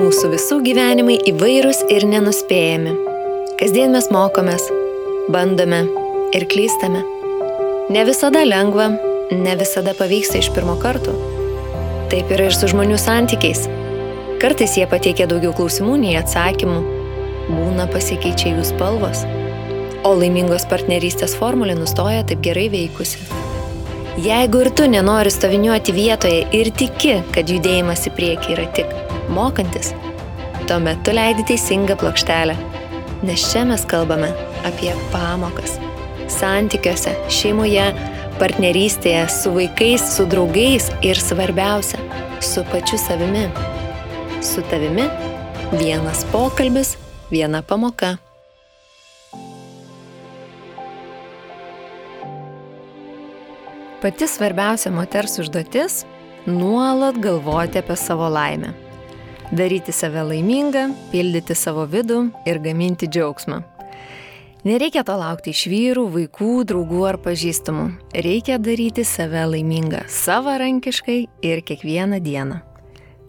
Mūsų visų gyvenimai įvairūs ir nenuspėjami. Kasdien mes mokomės, bandome ir klystame. Ne visada lengva, ne visada pavyksta iš pirmo karto. Taip yra ir su žmonių santykiais. Kartais jie pateikia daugiau klausimų nei atsakymų. Būna pasikeičia jų spalvos. O laimingos partnerystės formulė nustoja taip gerai veikusi. Jeigu ir tu nenori stoviniuoti vietoje ir tiki, kad judėjimas į priekį yra tik mokantis, tuomet tu leidi teisingą plokštelę. Nes čia mes kalbame apie pamokas. Santykiuose, šeimoje, partnerystėje, su vaikais, su draugais ir svarbiausia, su pačiu savimi. Su tavimi vienas pokalbis, viena pamoka. Pati svarbiausia moters užduotis – nuolat galvoti apie savo laimę. Daryti save laimingą, pildyti savo vidų ir gaminti džiaugsmą. Nereikia to laukti iš vyrų, vaikų, draugų ar pažįstamų. Reikia daryti save laimingą savarankiškai ir kiekvieną dieną.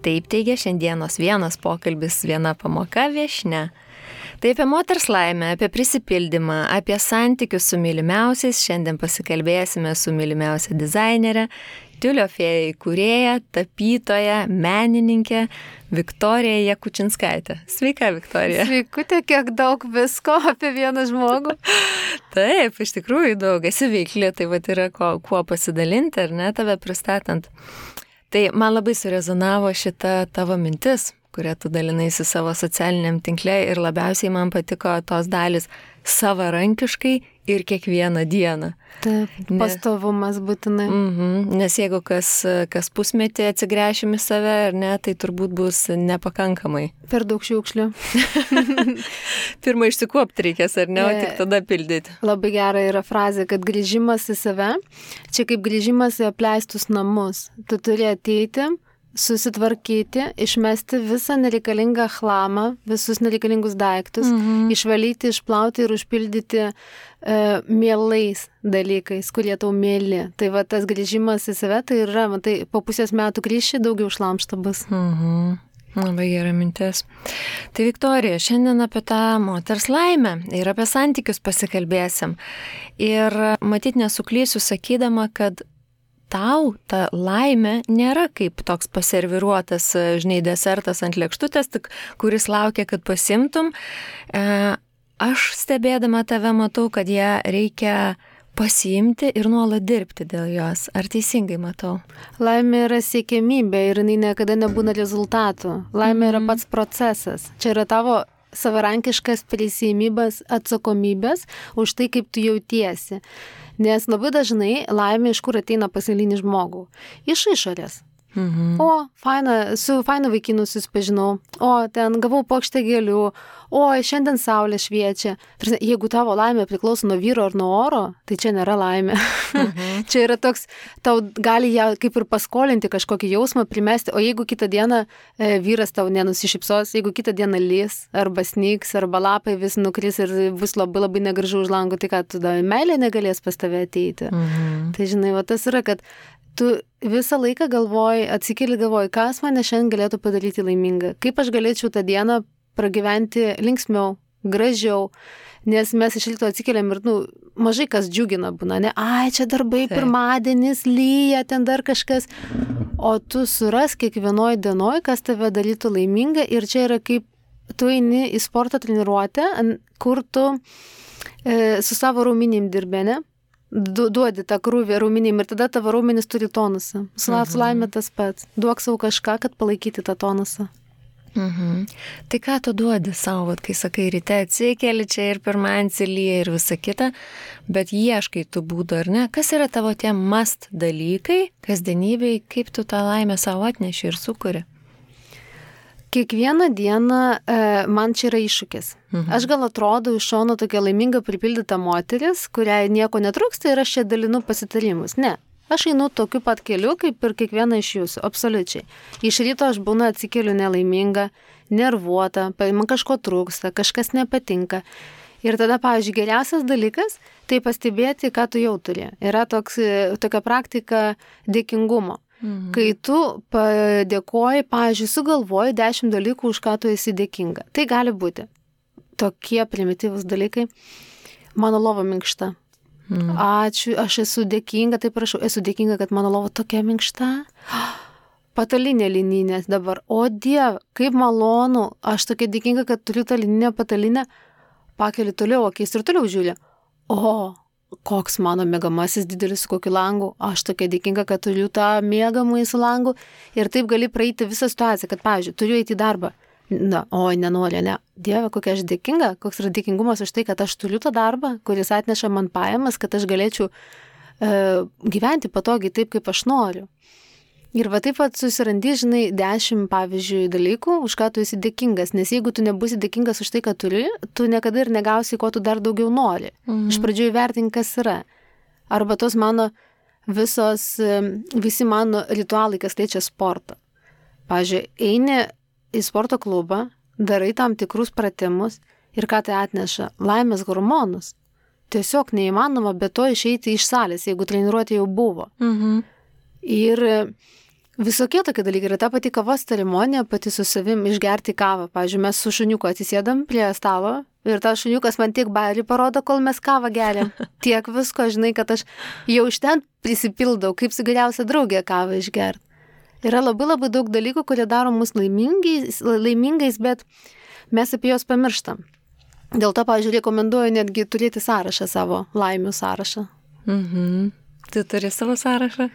Taip teigia šiandienos vienas pokalbis, viena pamoka viešnia. Tai apie moters laimę, apie prisipildymą, apie santykius su mylimiausiais. Šiandien pasikalbėsime su mylimiausia dizainerė, Tiulio fėja įkūrėja, tapytoja, menininkė Viktorija Jakučinskaitė. Sveika, Viktorija. Sveikutė, kiek daug visko apie vieną žmogų. Taip, iš tikrųjų daug. Esi veikli, tai vat yra kuo pasidalinti, ar ne, tave pristatant. Tai man labai surezonavo šita tavo mintis, kurią tu dalinaisi savo socialiniam tinkle ir labiausiai man patiko tos dalis savarankiškai ir kiekvieną dieną. Taip, pastovumas būtinai. Nes jeigu kas pusmetį atsigręšim į save, ar ne, tai turbūt bus nepakankamai. Per daug šiukšlių. Pirmą išsikuopti reikės, ar ne, o tik tada pildyti. Labai gera yra frazė, kad grįžimas į save, čia kaip grįžimas į apleistus namus. Tu turi ateiti, susitvarkyti, išmesti visą nereikalingą chlamą, visus nereikalingus daiktus, išvalyti, išplauti ir užpildyti mielais dalykais, kurie tau mėly. Tai va tas grįžimas į save, tai yra, tai po pusės metų grįši, daugiau šlamšto bus. Labai gera mintis. Tai Viktorija, šiandien apie tą moters laimę ir apie santykius pasikalbėsim. Ir matyt nesuklysiu sakydama, kad tau ta laimė nėra kaip toks paserviruotas, žinai, desertas ant lėkštutės, tik kuris laukia, kad pasimtum. Aš stebėdama tave matau, kad ją reikia pasiimti ir nuolat dirbti dėl jos. Ar teisingai matau? Laimė yra siekiamybė ir jinai niekada nebūna rezultatų. Laimė yra pats procesas. Čia yra tavo savarankiškas prisiėmimas atsakomybės už tai, kaip tu jautiesi. Nes labai dažnai laimė iš kur ateina pas eilinį žmogų? Iš išorės. O, su fainu vaikinu susipažinau, o, ten gavau puokštę gėlių, o, šiandien saulė šviečia. Jeigu tavo laimė priklauso nuo vyro ar nuo oro, tai čia nėra laimė. Čia yra toks, tau gali ją kaip ir paskolinti kažkokį jausmą, primesti, o jeigu kitą dieną vyras tau nenusišypsos, jeigu kitą dieną lys, arba snyks, arba lapai vis nukris ir bus labai labai negražu už lango, tai ką, tada meilė negalės pas tave ateiti. Tai žinai, va tas yra, kad tu visą laiką galvoji, atsikeli galvoji, kas mane šiandien galėtų padaryti laimingą, kaip aš galėčiau tą dieną pragyventi linksmiau, gražiau, nes mes iš ryto atsikeliam ir, mažai kas džiugina būna, ne, čia darbai, pirmadienis, lyja, ten dar kažkas, o tu suras kiekvienoj dienoj, kas tave darytų laimingą ir čia yra kaip tu eini į sporto treniruotę, kur tu su savo raumenim dirbi, ne? Duodi tą krūvį raumenim ir tada tavo raumenis turi tonusą. Su laimė tas pats. Duok savo kažką, kad palaikyti tą tonusą. Tai ką tu duodi savo, kai sakai, ryte atsikeli čia ir pirmadienį lyja ir visa kita, bet ieškai tų būdų, ar ne? Kas yra tavo tie must dalykai, kasdienybei, kaip tu tą laimę savo atneši ir sukuri? Kiekvieną dieną man čia yra iššūkis. Aš gal atrodau iš šono tokia laiminga pripildyta moteris, kuriai nieko netrūksta ir aš čia dalinu pasitarimus. Ne. Aš einu tokiu pat keliu, kaip ir kiekviena iš jūsų, absoliučiai. Iš ryto aš būna atsikeliu nelaiminga, nervuota, man kažko trūksta, kažkas nepatinka. Ir tada, pavyzdžiui, geriausias dalykas tai pastebėti, ką tu jau turi. Yra tokia praktika dėkingumo. kai tu padėkoji, pavyzdžiui, sugalvoji 10 dalykų, už ką tu esi dėkinga. Tai gali būti tokie primityvūs dalykai. Mano lova minkšta. Ačiū, aš esu dėkinga, tai prašau, esu dėkinga, kad mano lova tokia minkšta. Patalinė lininė dabar. O Dieve, kaip malonu, aš tokia dėkinga, kad turiu tą lininę patalinę. Pakeli toliau akis ir toliau žiūri. O, koks mano mėgamasis didelis su kokiu langu. Aš tokia dėkinga, kad turiu tą mėgamąjį su langu. Ir taip gali praeiti visą situaciją, kad, pavyzdžiui, turiu eiti į darbą. Na, oi, nenoriu, ne. Dieve, kokia aš dėkinga, koks yra dėkingumas už tai, kad aš turiu tą darbą, kuris atneša man pajamas, kad aš galėčiau gyventi patogiai taip, kaip aš noriu. Ir va taip pat susirandi, žinai, 10, pavyzdžiui, dalykų, už ką tu esi dėkingas, nes jeigu tu nebūsi dėkingas už tai, ką turi, tu niekada ir negausi, ko tu dar daugiau nori. Iš pradžių įvertink, kas yra. Arba tos mano visi mano ritualai, kas liečia sportą. Pavyzdžiui, eini į sporto klubą, darai tam tikrus pratimus ir ką tai atneša? Laimės hormonus. Tiesiog neįmanoma be to išeiti iš salės, jeigu treniruotė jau buvo. Ir visokie tokie dalykai. Ir ta pati kavos ceremonija, pati su savim išgerti kavą. Pavyzdžiui, mes su šuniuku atsisėdam prie stalo ir tas šuniukas man tiek bairį parodo, kol mes kavą geriam. Tiek visko, žinai, kad aš jau iš ten prisipildau, kaip su geriausia draugė kavą išgerti. Yra labai daug dalykų, kurie daro mus laimingais, bet mes apie juos pamirštam. Dėl to, pavyzdžiui, rekomenduoju netgi turėti sąrašą savo, laimių sąrašą. Tu turi savo sąrašą?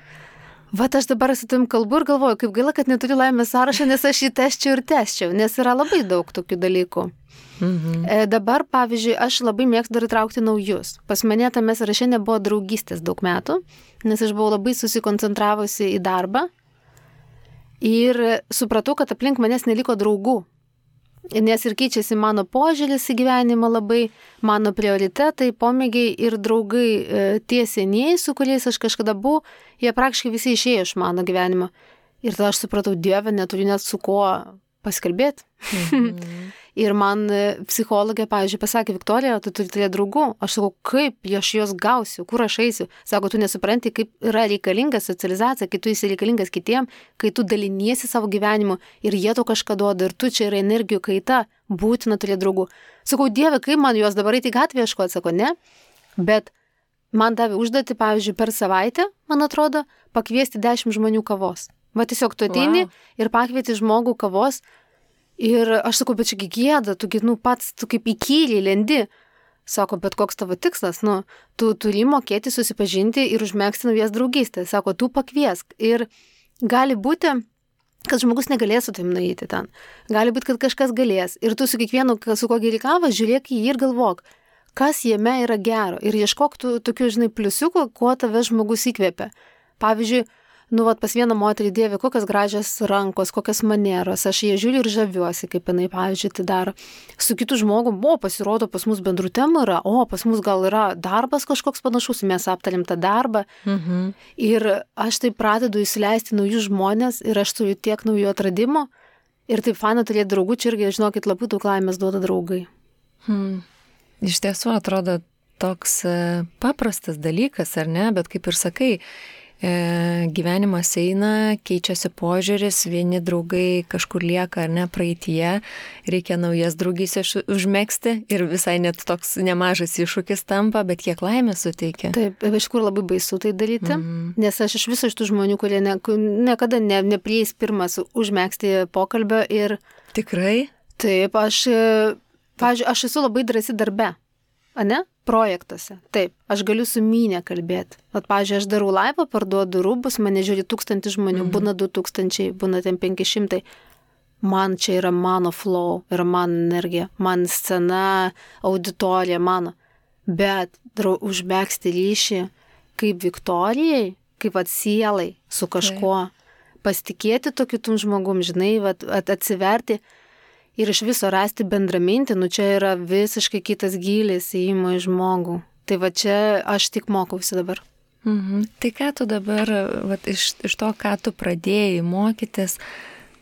Vat aš dabar su tavim kalbu ir galvoju, kaip gaila, kad neturiu laimės sąrašą, nes aš jį tesčiau, nes yra labai daug tokių dalykų. Dabar, pavyzdžiui, aš labai mėgstu dar įtraukti naujus. Pas mane tame sąraše nebuvo draugystės daug metų, nes aš buvau labai susikoncentravusi į darbą. Ir supratau, kad aplink manęs neliko draugų. Nes ir keičiasi mano požiūris į gyvenimą labai, mano prioritetai, pomėgiai ir draugai tie senieji, su kuriais aš kažkada buvau, jie praktiškai visi išėjo iš mano gyvenimo. Ir tada aš supratau, Dieve, neturiu net su kuo pasikalbėti. Ir man psichologė, pavyzdžiui, pasakė, Viktorija, tu turi turėti draugų. Aš sakau, kaip aš juos gausiu, kur aš eisiu. Sako, tu nesupranti, kaip yra reikalinga socializacija, kai tu esi reikalingas kitiem, kai tu daliniesi savo gyvenimu ir jie to kažką duoda ir tu čia yra energijų kaita, būtina turėti draugų. Sakau, Dieve, kaip man juos dabar eiti į gatvę ieškoti, sako, ne. Bet man davė užduotį, pavyzdžiui, per savaitę, man atrodo, pakviesti 10 žmonių kavos. Va tiesiog tu ateini ir pakvieti žmogų kavos. Ir aš sakau, bet čia gėda, tu kaip įkyriai lendi. Sako, bet koks tavo tikslas? Tu turi mokėti susipažinti ir užmegzti naujas draugystės. Sako, tu pakviesk. Ir gali būti, kad žmogus negalės su tavim nueiti ten. Gali būti, kad kažkas galės. Ir tu su kiekvienu, su kuo geri kavą, žiūrėk į jį ir galvok, kas jame yra gero. Ir ieškok tokių, žinai, pliusiukų, kuo tave žmogus įkvėpia. Pavyzdžiui, pas vieną moterį, Dieve, kokios gražios rankos, kokios manieros, aš jie žiūriu ir žaviuosi, kaip jinai, pavyzdžiui, tai daro. Su kitu žmogum, pasirodo, pas mus bendrų temų yra, pas mus gal yra darbas kažkoks panašus, mes aptarėm tą darbą. Ir aš taip pradedu įsileisti naujus žmonės ir aš turiu tiek naujų atradimų. Ir taip faina turėti draugų, čia irgi, žinokit, labai daug laimės duoda draugai. Iš tiesų atrodo toks paprastas dalykas, ar ne, bet kaip ir sakai, gyvenimas eina, keičiasi požiūris, vieni draugai kažkur lieka ar ne praeityje, reikia naujas draugystės užmegzti ir visai net toks nemažas iššūkis tampa, bet kiek laimės suteikia. Taip, iš kur labai baisu tai daryti, nes aš iš viso iš tų žmonių, kurie niekada neprieis pirmas užmegzti pokalbio ir... Tikrai? Taip, pavyzdžiui, aš esu labai drąsi darbe, ane? Projektuose. Taip, aš galiu su mynė kalbėti. Pavyzdžiui, aš darau laivą, parduodu rūbus, mane žiūri 1000 žmonių, būna 2000, būna ten 500. Man čia yra mano flow, yra mano energija, man scena, auditorija mano. Bet užmegzti ryšį kaip Viktorijai, kaip sielai su kažkuo, pasitikėti to kitum žmogum, žinai, atsiverti. Ir iš viso rasti bendramintį, čia yra visiškai kitas gylis įėjimo į žmogų. Tai čia aš tik mokausi dabar. Tai ką tu dabar, iš to, ką tu pradėjai mokytis,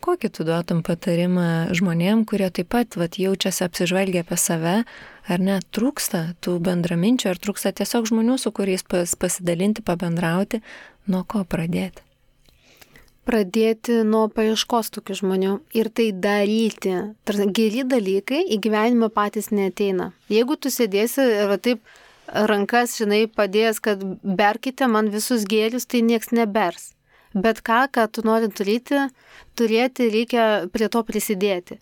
kokį tu duotum patarimą žmonėm, kurie taip pat jaučiasi apsižvalgę apie save, ar ne, trūksta tų bendraminčių, ar trūksta tiesiog žmonių, su kuriais pasidalinti, pabendrauti, nuo ko pradėti? pradėti nuo paieškos tokių žmonių ir tai daryti. Geri dalykai į gyvenimą patys neateina. Jeigu tu sėdėsi ir taip rankas, padėjęs, kad berkite man visus gėrius, tai nieks nebers. Bet ką tu nori turėti, reikia prie to prisidėti.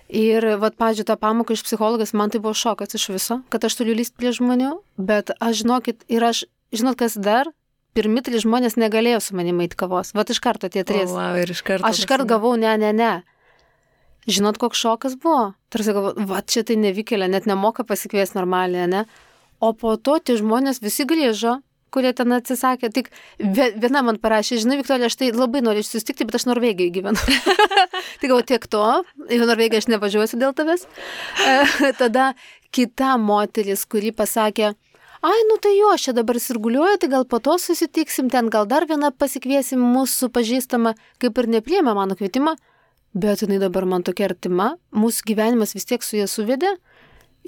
Ir, pavyzdžiui, tą pamoką iš psichologijos, man tai buvo šokas iš viso, kad aš turiu lysti prie žmonių, bet žinot, kas dar? Pirmi 3 žmonės negalėjo su manimi eiti kavos. Iš karto tie 3. Aš iškart gavau, ne. Žinot, koks šokas buvo? Tarsi galvoju, čia tai nevykėlė, net nemoka pasikviesti normaliai, ne? O po to tie žmonės visi grįžo, kurie ten atsisakė. Tik viena man parašė, žinai, Viktorija, aš tai labai noriu susitikti, bet aš Norvegijoje gyvenu. Tai galvoju, tiek to, į Norvegiją aš nevažiuosiu dėl tavęs. Tada kita moteris, kuri pasakė, tai jo, aš čia dabar sirguliuoju, tai gal po to susitiksim, ten gal dar vieną pasikviesim mūsų pažįstamą, kaip ir nepriėmė mano kvietimą, bet jinai dabar man tokia artima, mūsų gyvenimas vis tiek su ja suvedė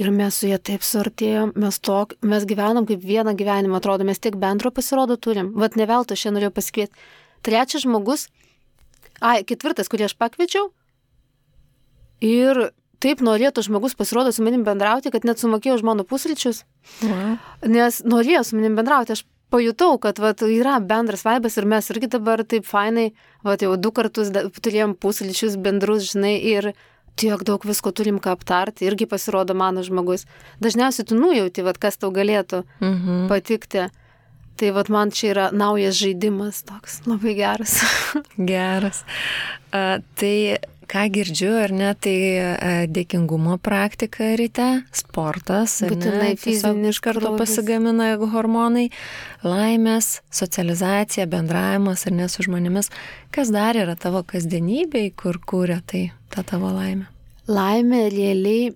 ir mes su ja taip suartėjom, mes gyvenam kaip vieną gyvenimą, atrodo, mes tiek bendro pasirodo turim, ne veltui aš čia norėjau pasikviesti. 3 žmogus, 4, kurį aš pakviečiau ir taip norėtų žmogus pasirodo su manim bendrauti, kad net sumokėjau už mano pusryčius. Wow. Nes norėjo su manim bendrauti. Aš pajutau, kad yra bendras vaibas ir mes irgi dabar taip fainai, jau 2 kartus turėjom pusryčius bendrus, ir tiek daug visko turim ką aptarti. Irgi pasirodo mano žmogus. Dažniausiai tu nujauti, kas tau galėtų patikti. Tai man čia yra naujas žaidimas toks, labai geras. Geras. Tai ką girdžiu, ar ne, tai dėkingumo praktika ryte, sportas, būtinai fizinis, iš karto pasigamina hormonai, laimės, socializacija, bendravimas, ar ne, su žmonėmis. Kas dar yra tavo kasdienybėj, kur kūrė ta tavo laimė? Laimė realiai,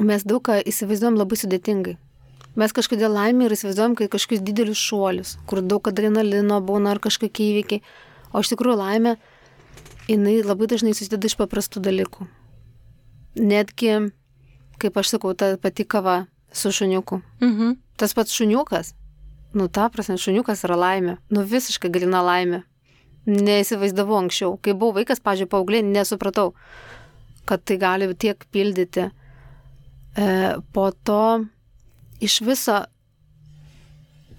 mes daug ką įsivaizduojam labai sudėtingai. Mes kažkodėl laimė ir įsivaizduojam, kai kažkokius didelius šuolius, kur daug adrenalino būna ar kažkokie įvykiai. O iš tikrųjų laimė, jinai labai dažnai susideda iš paprastų dalykų. Netgi, kaip aš sakau, ta pati kava su šuniuku. Tas pats šuniukas, ta prasme, šuniukas yra laimė. Visiškai galina laimė. Neįsivaizdavau anksčiau. Kai buvau vaikas, pavyzdžiui, paauglė, nesupratau, kad tai gali tiek pildyti. Po to iš viso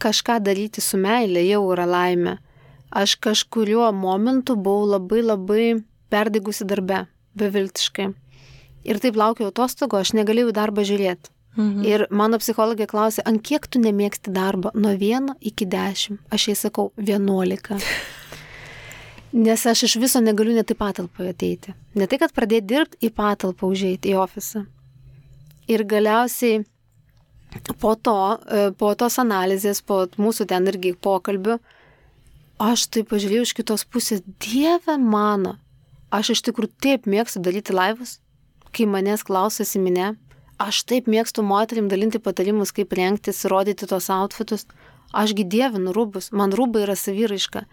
kažką daryti su meilė jau yra laimė. Aš kažkuriuo momentu buvau labai perdigusi darbe, beviltiškai. Ir taip laukiau atostogų, aš negalėjau darbą žiūrėti. Ir mano psichologė klausė, ant kiek tu nemėgsti darbą? Nuo 1 iki 10. Aš jai sakau 11. Nes aš iš viso negaliu net į patalpą ateiti. Ne tai, kad pradėti dirbti, į patalpą užeiti, į ofisą. Ir galiausiai po tos analizės, po mūsų ten irgi pokalbių, aš taip pažiūrėjau iš kitos pusės, Dieve mano, aš iš tikrųjų taip mėgstu daryti laivus, kai manęs klausosi minė, aš taip mėgstu moterim dalinti patarimus, kaip rengtis, rodyti tos outfitus, ašgi dievinu rūbus, man rūbai yra saviraiška.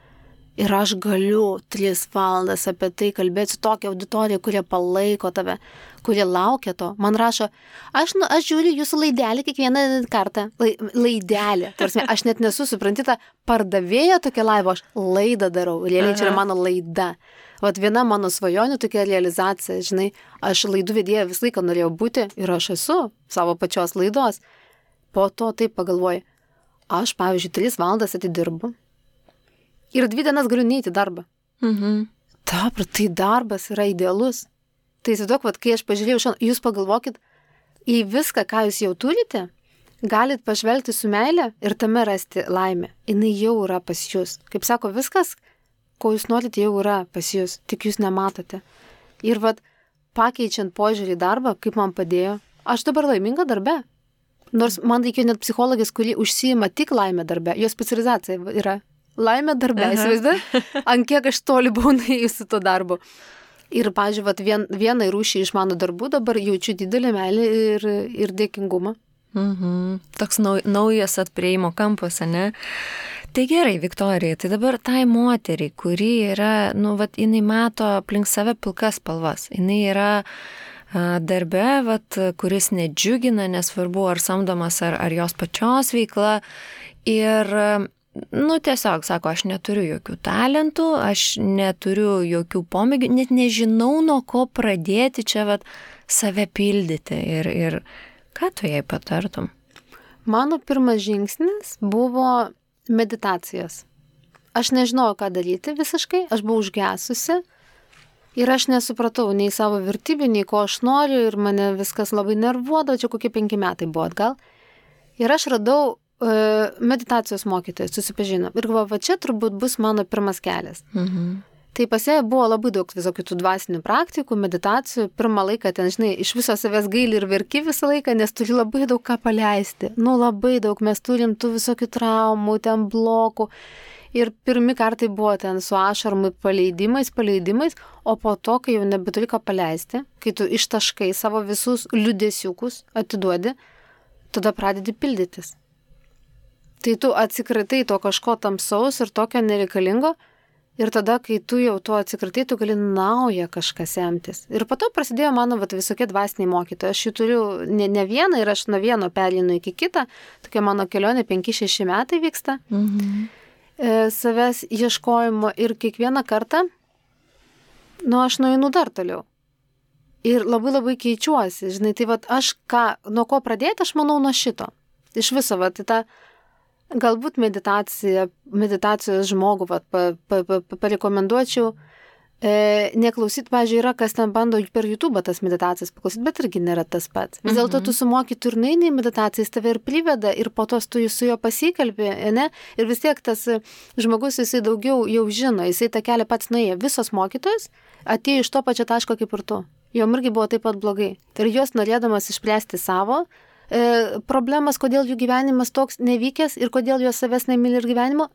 Ir aš galiu 3 valandas apie tai kalbėti su tokia auditorija, kurie palaiko tave, kurie laukia to. Man rašo, aš žiūriu jūsų laidelį kiekvieną kartą. Laidelį. Tarsi, aš net nesu suprantyta, pardavėja tokia laivo, aš laidą darau. Realiai čia yra mano laida. Viena mano svajonių tokia realizacija, žinai, aš laidų vedėja visą laiką norėjau būti ir aš esu savo pačios laidos. Po to taip pagalvoju, aš, pavyzdžiui, 3 valandas atidirbu. Ir 2 dienas galiu neiti darbą. Tai darbas yra idealus. Tai įsivaizduok, kai aš pažiūrėjau šiandien, jūs pagalvokit į viską, ką jūs jau turite, galit pažvelgti su meile ir tame rasti laimę. Jinai jau yra pas jūs. Kaip sako, viskas, ko jūs norite, jau yra pas jūs, tik jūs nematote. Ir pakeičiant požiūrį į darbą, kaip man padėjo, aš dabar laiminga darbe. Nors man reikėjo net psichologės, kuri užsiima tik laimę darbe. Jos specializacija yra laimė darbe, įsivaizduoji? Ant kiek aš toli buvau nuėjusi to darbo. Ir, pavyzdžiui, vienai rūšiai iš mano darbų dabar jaučiu didelį meilę ir dėkingumą. Toks naujas atprieimo kampas, ne? Tai gerai, Viktorija, tai dabar tai moteriai, kuri yra, jinai mato aplink save pilkas spalvas. Jinai yra darbe, kuris nedžiugina, nesvarbu ar samdomas, ar jos pačios veikla. Ir tiesiog, sako, aš neturiu jokių talentų, aš neturiu jokių pomėgių, net nežinau, nuo ko pradėti čia save pildyti ir ką tu jai patartum? Mano pirmas žingsnis buvo meditacijos. Aš nežinojau, ką daryti visiškai, aš buvau užgesusi ir aš nesupratau nei savo vertybių, nei ko aš noriu ir mane viskas labai nervuodavo, čia kokie 5 metai buvo atgal. Ir aš radau meditacijos mokytoją, susipažinau. Ir galvoju, va čia turbūt bus mano pirmas kelias. Tai pas ją buvo labai daug visokių tų dvasinių praktikų, meditacijų. Pirmą laiką ten, žinai, iš viso savęs gaili ir verki visą laiką, nes turi labai daug ką paleisti. Labai daug, mes turim tų visokių traumų, ten blokų. Ir pirmi kartai buvo ten su ašarmai paleidimais, o po to, kai jau nebeturi ką paleisti, kai tu ištaškai savo visus liūdesiukus, atiduodi, tada pradedi pildytis. Tai tu atsikratai to kažko tamsaus ir tokio nereikalingo ir tada, kai tu jau to atsikratai, tu gali naują kažką semtis. Ir po to prasidėjo mano visokie dvasiniai mokytojai. Aš jų turiu ne vieną ir aš nuo vieno perlinu iki kitą. Tokia mano kelionė 5-6 metai vyksta. Savęs ieškojimo ir kiekvieną kartą, aš nueinu dar toliau. Ir labai keičiuosi, žinai, tai aš nuo ko pradėti, aš manau nuo šito. Iš viso, tą galbūt meditacijos žmogų parekomenduočiau, neklausyti, pavyzdžiui, yra, kas ten bando per YouTube tas meditacijas paklausyti, bet irgi nėra tas pats. Vis dėlto tu sumoki turnainį meditacijas, tave ir priveda ir po to tu su juo pasikalbė, ne? Ir vis tiek tas žmogus, jisai daugiau jau žino, jisai tą kelią pats nuėjo. Visos mokytojos atėjo iš to pačio taško kaip ir tu. Jom irgi buvo taip pat blogai. Ir jos norėdamas išspręsti savo problemas, kodėl jų gyvenimas toks nevykęs ir kodėl jos savęs nemyli ir gyvenimo,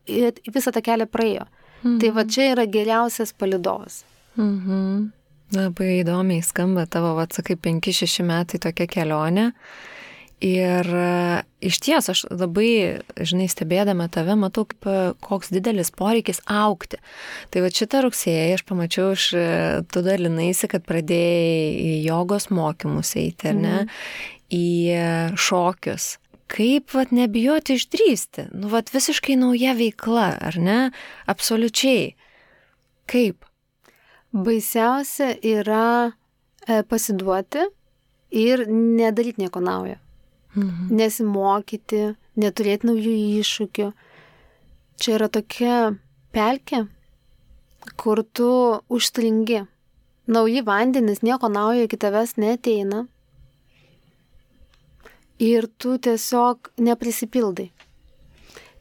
visą tą kelią praėjo. Tai čia yra geriausias palydovas. Labai įdomiai skamba tavo, sakai, 5-6 metai tokia kelionė. Ir iš ties aš labai, žinai, stebėdama tave, matau, koks didelis poreikis augti. Tai šitą rugsėjį aš pamačiau, tu dalinaisi, kad pradėjai į jogos mokymus eiti, ar ne? Į šokius. Kaip nebijoti išdrįsti? Visiškai nauja veikla, ar ne? Absoliučiai. Kaip? Baisiausia yra pasiduoti ir nedaryti nieko naujo. Nesimokyti, neturėti naujų iššūkių. Čia yra tokia pelkė, kur tu užstringi. Nauji vandenys, nieko naujo iki tavęs neateina. Ir tu tiesiog neprisipildai.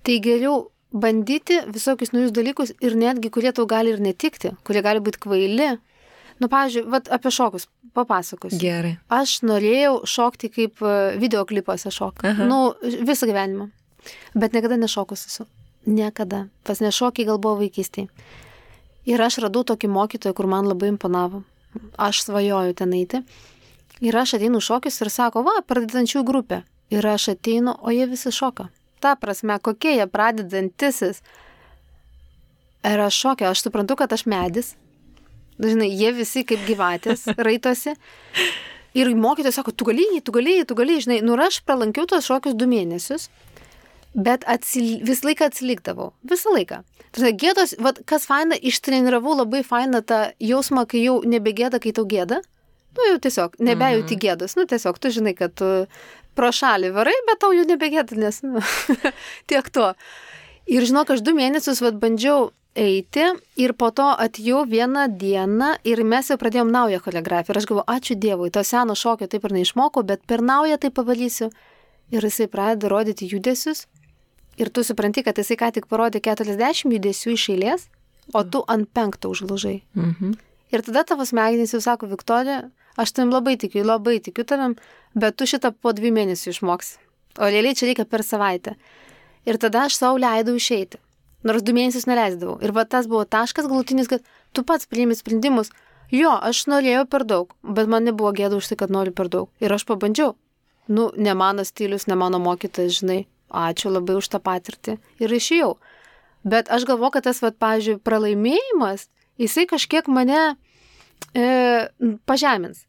Tai geriau bandyti visokius naujus dalykus ir netgi, kurie tau gali ir netikti, kurie gali būti kvaili. Pavyzdžiui, apie šokus papasakosiu. Gerai. Aš norėjau šokti kaip videoklipuose šokti. Visą gyvenimą. Bet niekada nešokus esu. Niekada. Pas nešokiai gal buvo vaikystėje. Ir aš radau tokį mokytoją, kur man labai imponavo. Aš svajoju ten eiti. Ir aš ateinu šokius ir sako, pradedančių grupė. Ir aš ateinu, o jie visi šoka. Ta prasme, kokie jie pradedantisis. Ir aš šokia, aš suprantu, kad aš medis. Žinai, jie visi kaip gyvatės raitosi. Ir mokytojas sako, tu gali, žinai. Ir aš pralankiau tos šokius 2 mėnesius. Bet visą laiką atsilikdavau. Visą laiką. Tai gėdos, kas faina, ištreniravau labai fainą tą jausmą, kai jau nebegėda, kai tau gėda. Jau tiesiog, nebejauti gėdos. Tiesiog, tu žinai, kad tu pro šalį varai, bet tau jau nebegėda, nes, tiek to. Ir žinok, aš 2 mėnesius bandžiau eiti ir po to atėjau vieną dieną ir mes jau pradėjom naują choreografiją. Ir aš galvoju, ačiū Dievui, to seno šokio taip ir neišmokau, bet per naują tai pavalysiu. Ir jisai pradeda rodyti judesius. Ir tu supranti, kad jisai ką tik parodė 40 judesių iš eilės, o tu ant 5 užlaužai. Ir tada tavo smegenys jau sako, Viktorija, aš tavim labai tikiu tavim, bet tu šitą po 2 mėnesių išmoksi. O realiai čia reikia per savaitę. Ir tada aš savo leidau išeiti. Nors 2 mėnesius neleisdavau. Ir tas buvo taškas galutinis, kad tu pats priimi sprendimus. Jo, aš norėjau per daug, bet man nebuvo gėda už tai, kad noriu per daug. Ir aš pabandžiau. Ne mano stilius, ne mano mokytas, žinai. Ačiū labai už tą patirtį. Ir išėjau. Bet aš galvoju, kad tas, pavyzdžiui, pralaimėjimas, jisai kažkiek mane pažemins.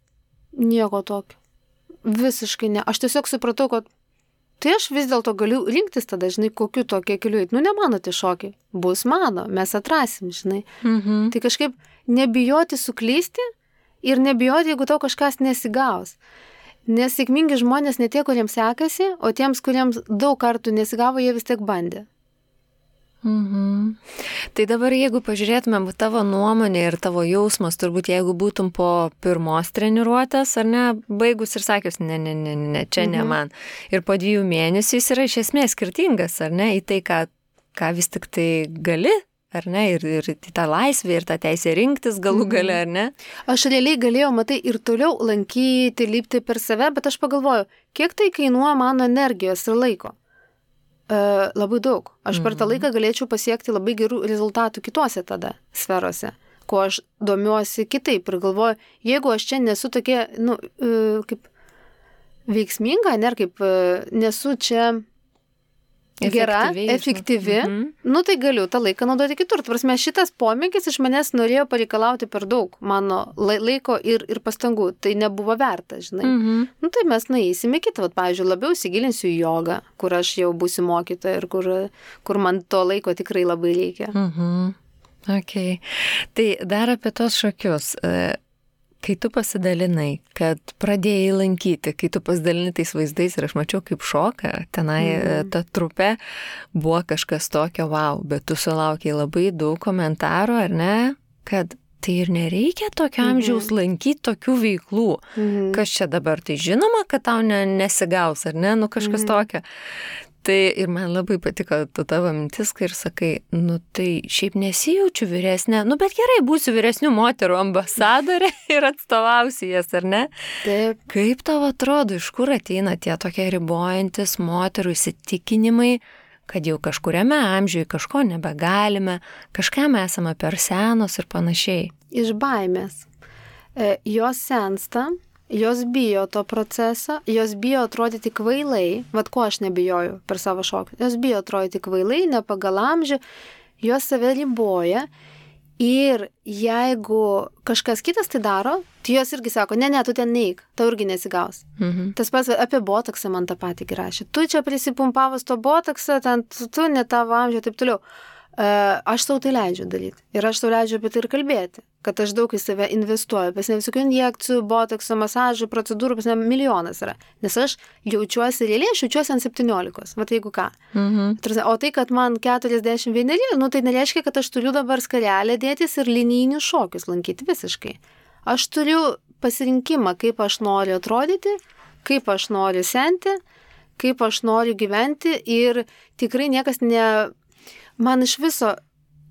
Nieko tokio. Visiškai ne. Aš tiesiog supratau, kad tai aš vis dėlto galiu rinktis tada, žinai, kokiu tokie keliu. Nu, ne mano tie šokiai, bus mano, mes atrasim, žinai. Tai kažkaip nebijoti suklysti ir nebijoti, jeigu tau kažkas nesigaus. Nes sėkmingi žmonės ne tie, kuriems sekasi, o tiems, kuriems daug kartų nesigavo, jie vis tiek bandė. Tai dabar, jeigu pažiūrėtumėm tavo nuomonę ir tavo jausmas, turbūt jeigu būtum po pirmos treniruotės, ar ne, baigus ir sakius, ne, čia ne man. Ir po 2 mėnesių jis yra iš esmės skirtingas, ar ne, į tai, ką vis tik tai gali, ar ne, ir tą laisvę, ir tą teisę rinktis galų gale, ar ne? Aš realiai galėjau, matai, ir toliau lankyti, lipti per save, bet aš pagalvoju, kiek tai kainuoja mano energijos ir laiko. Labai daug. Aš per tą laiką galėčiau pasiekti labai gerų rezultatų kitose tada sferose, kuo aš domiuosi kitaip ir galvoju, jeigu aš čia nesu tokia, kaip veiksminga, ne, kaip nesu čia gera, efektyvi, tai galiu tą laiką naudoti kitur. Prasme, šitas pomėgis iš manęs norėjo pareikalauti per daug mano laiko ir pastangų. Tai nebuvo verta, žinai. Tai mes nueisime kitą. Pavyzdžiui, labiau įsigilinsiu į jogą, kur aš jau būsiu mokytoja ir kur man to laiko tikrai labai reikia. Okay. Tai dar apie tos šokius. Kai tu pasidalinai, kad pradėjai lankyti, kai tu pasidalini tais vaizdais ir aš mačiau kaip šoka, tenai ta trupė buvo kažkas tokio, wow, bet tu sulaukiai labai daug komentarų, ar ne, kad tai ir nereikia tokio amžiaus lankyti tokių veiklų. Kas čia dabar, tai žinoma, kad tau nesigaus, ar ne, kažkas tokio. Tai ir man labai patiko tavo mintis, kai ir sakai, tai šiaip nesijaučiu vyresnė, bet gerai, būsiu vyresnių moterų ambasadorė ir atstovausiu jas, ar ne? Taip. Kaip tau atrodo, iš kur ateina tie tokie ribojantis moterų įsitikinimai, kad jau kažkuriame amžiuje kažko nebegalime, kažkam esame per senos ir panašiai? Iš baimės. Jos sensta. Jos bijo to proceso, jos bijo atrodyti kvailai, ko aš nebijoju per savo šokį, jos bijo atrodyti kvailai, ne pagal amžių, jos save riboja ir jeigu kažkas kitas tai daro, tai jos irgi sako, ne, tu ten neik, tau irgi nesigaus. Tas pats apie botoksą man tą patį rašė, tu čia prisipumpavus to botoksą, ten tu ne tavo amžių, taip toliau. Aš sau tai leidžiu daryti ir aš sau leidžiu apie tai ir kalbėti, kad aš daug į save investuoju, pas ne visokių injekcijų, botokso, masažų, procedūrų, pas ne milijonas yra, nes aš jaučiuosi realiai, aš jaučiuosi ant 17, jeigu ką. O tai, kad man 41, tai nereiškia, kad aš turiu dabar skarelę dėtis ir linijinius šokius lankyti visiškai. Aš turiu pasirinkimą, kaip aš noriu atrodyti, kaip aš noriu senti, kaip aš noriu gyventi ir tikrai niekas Man iš viso,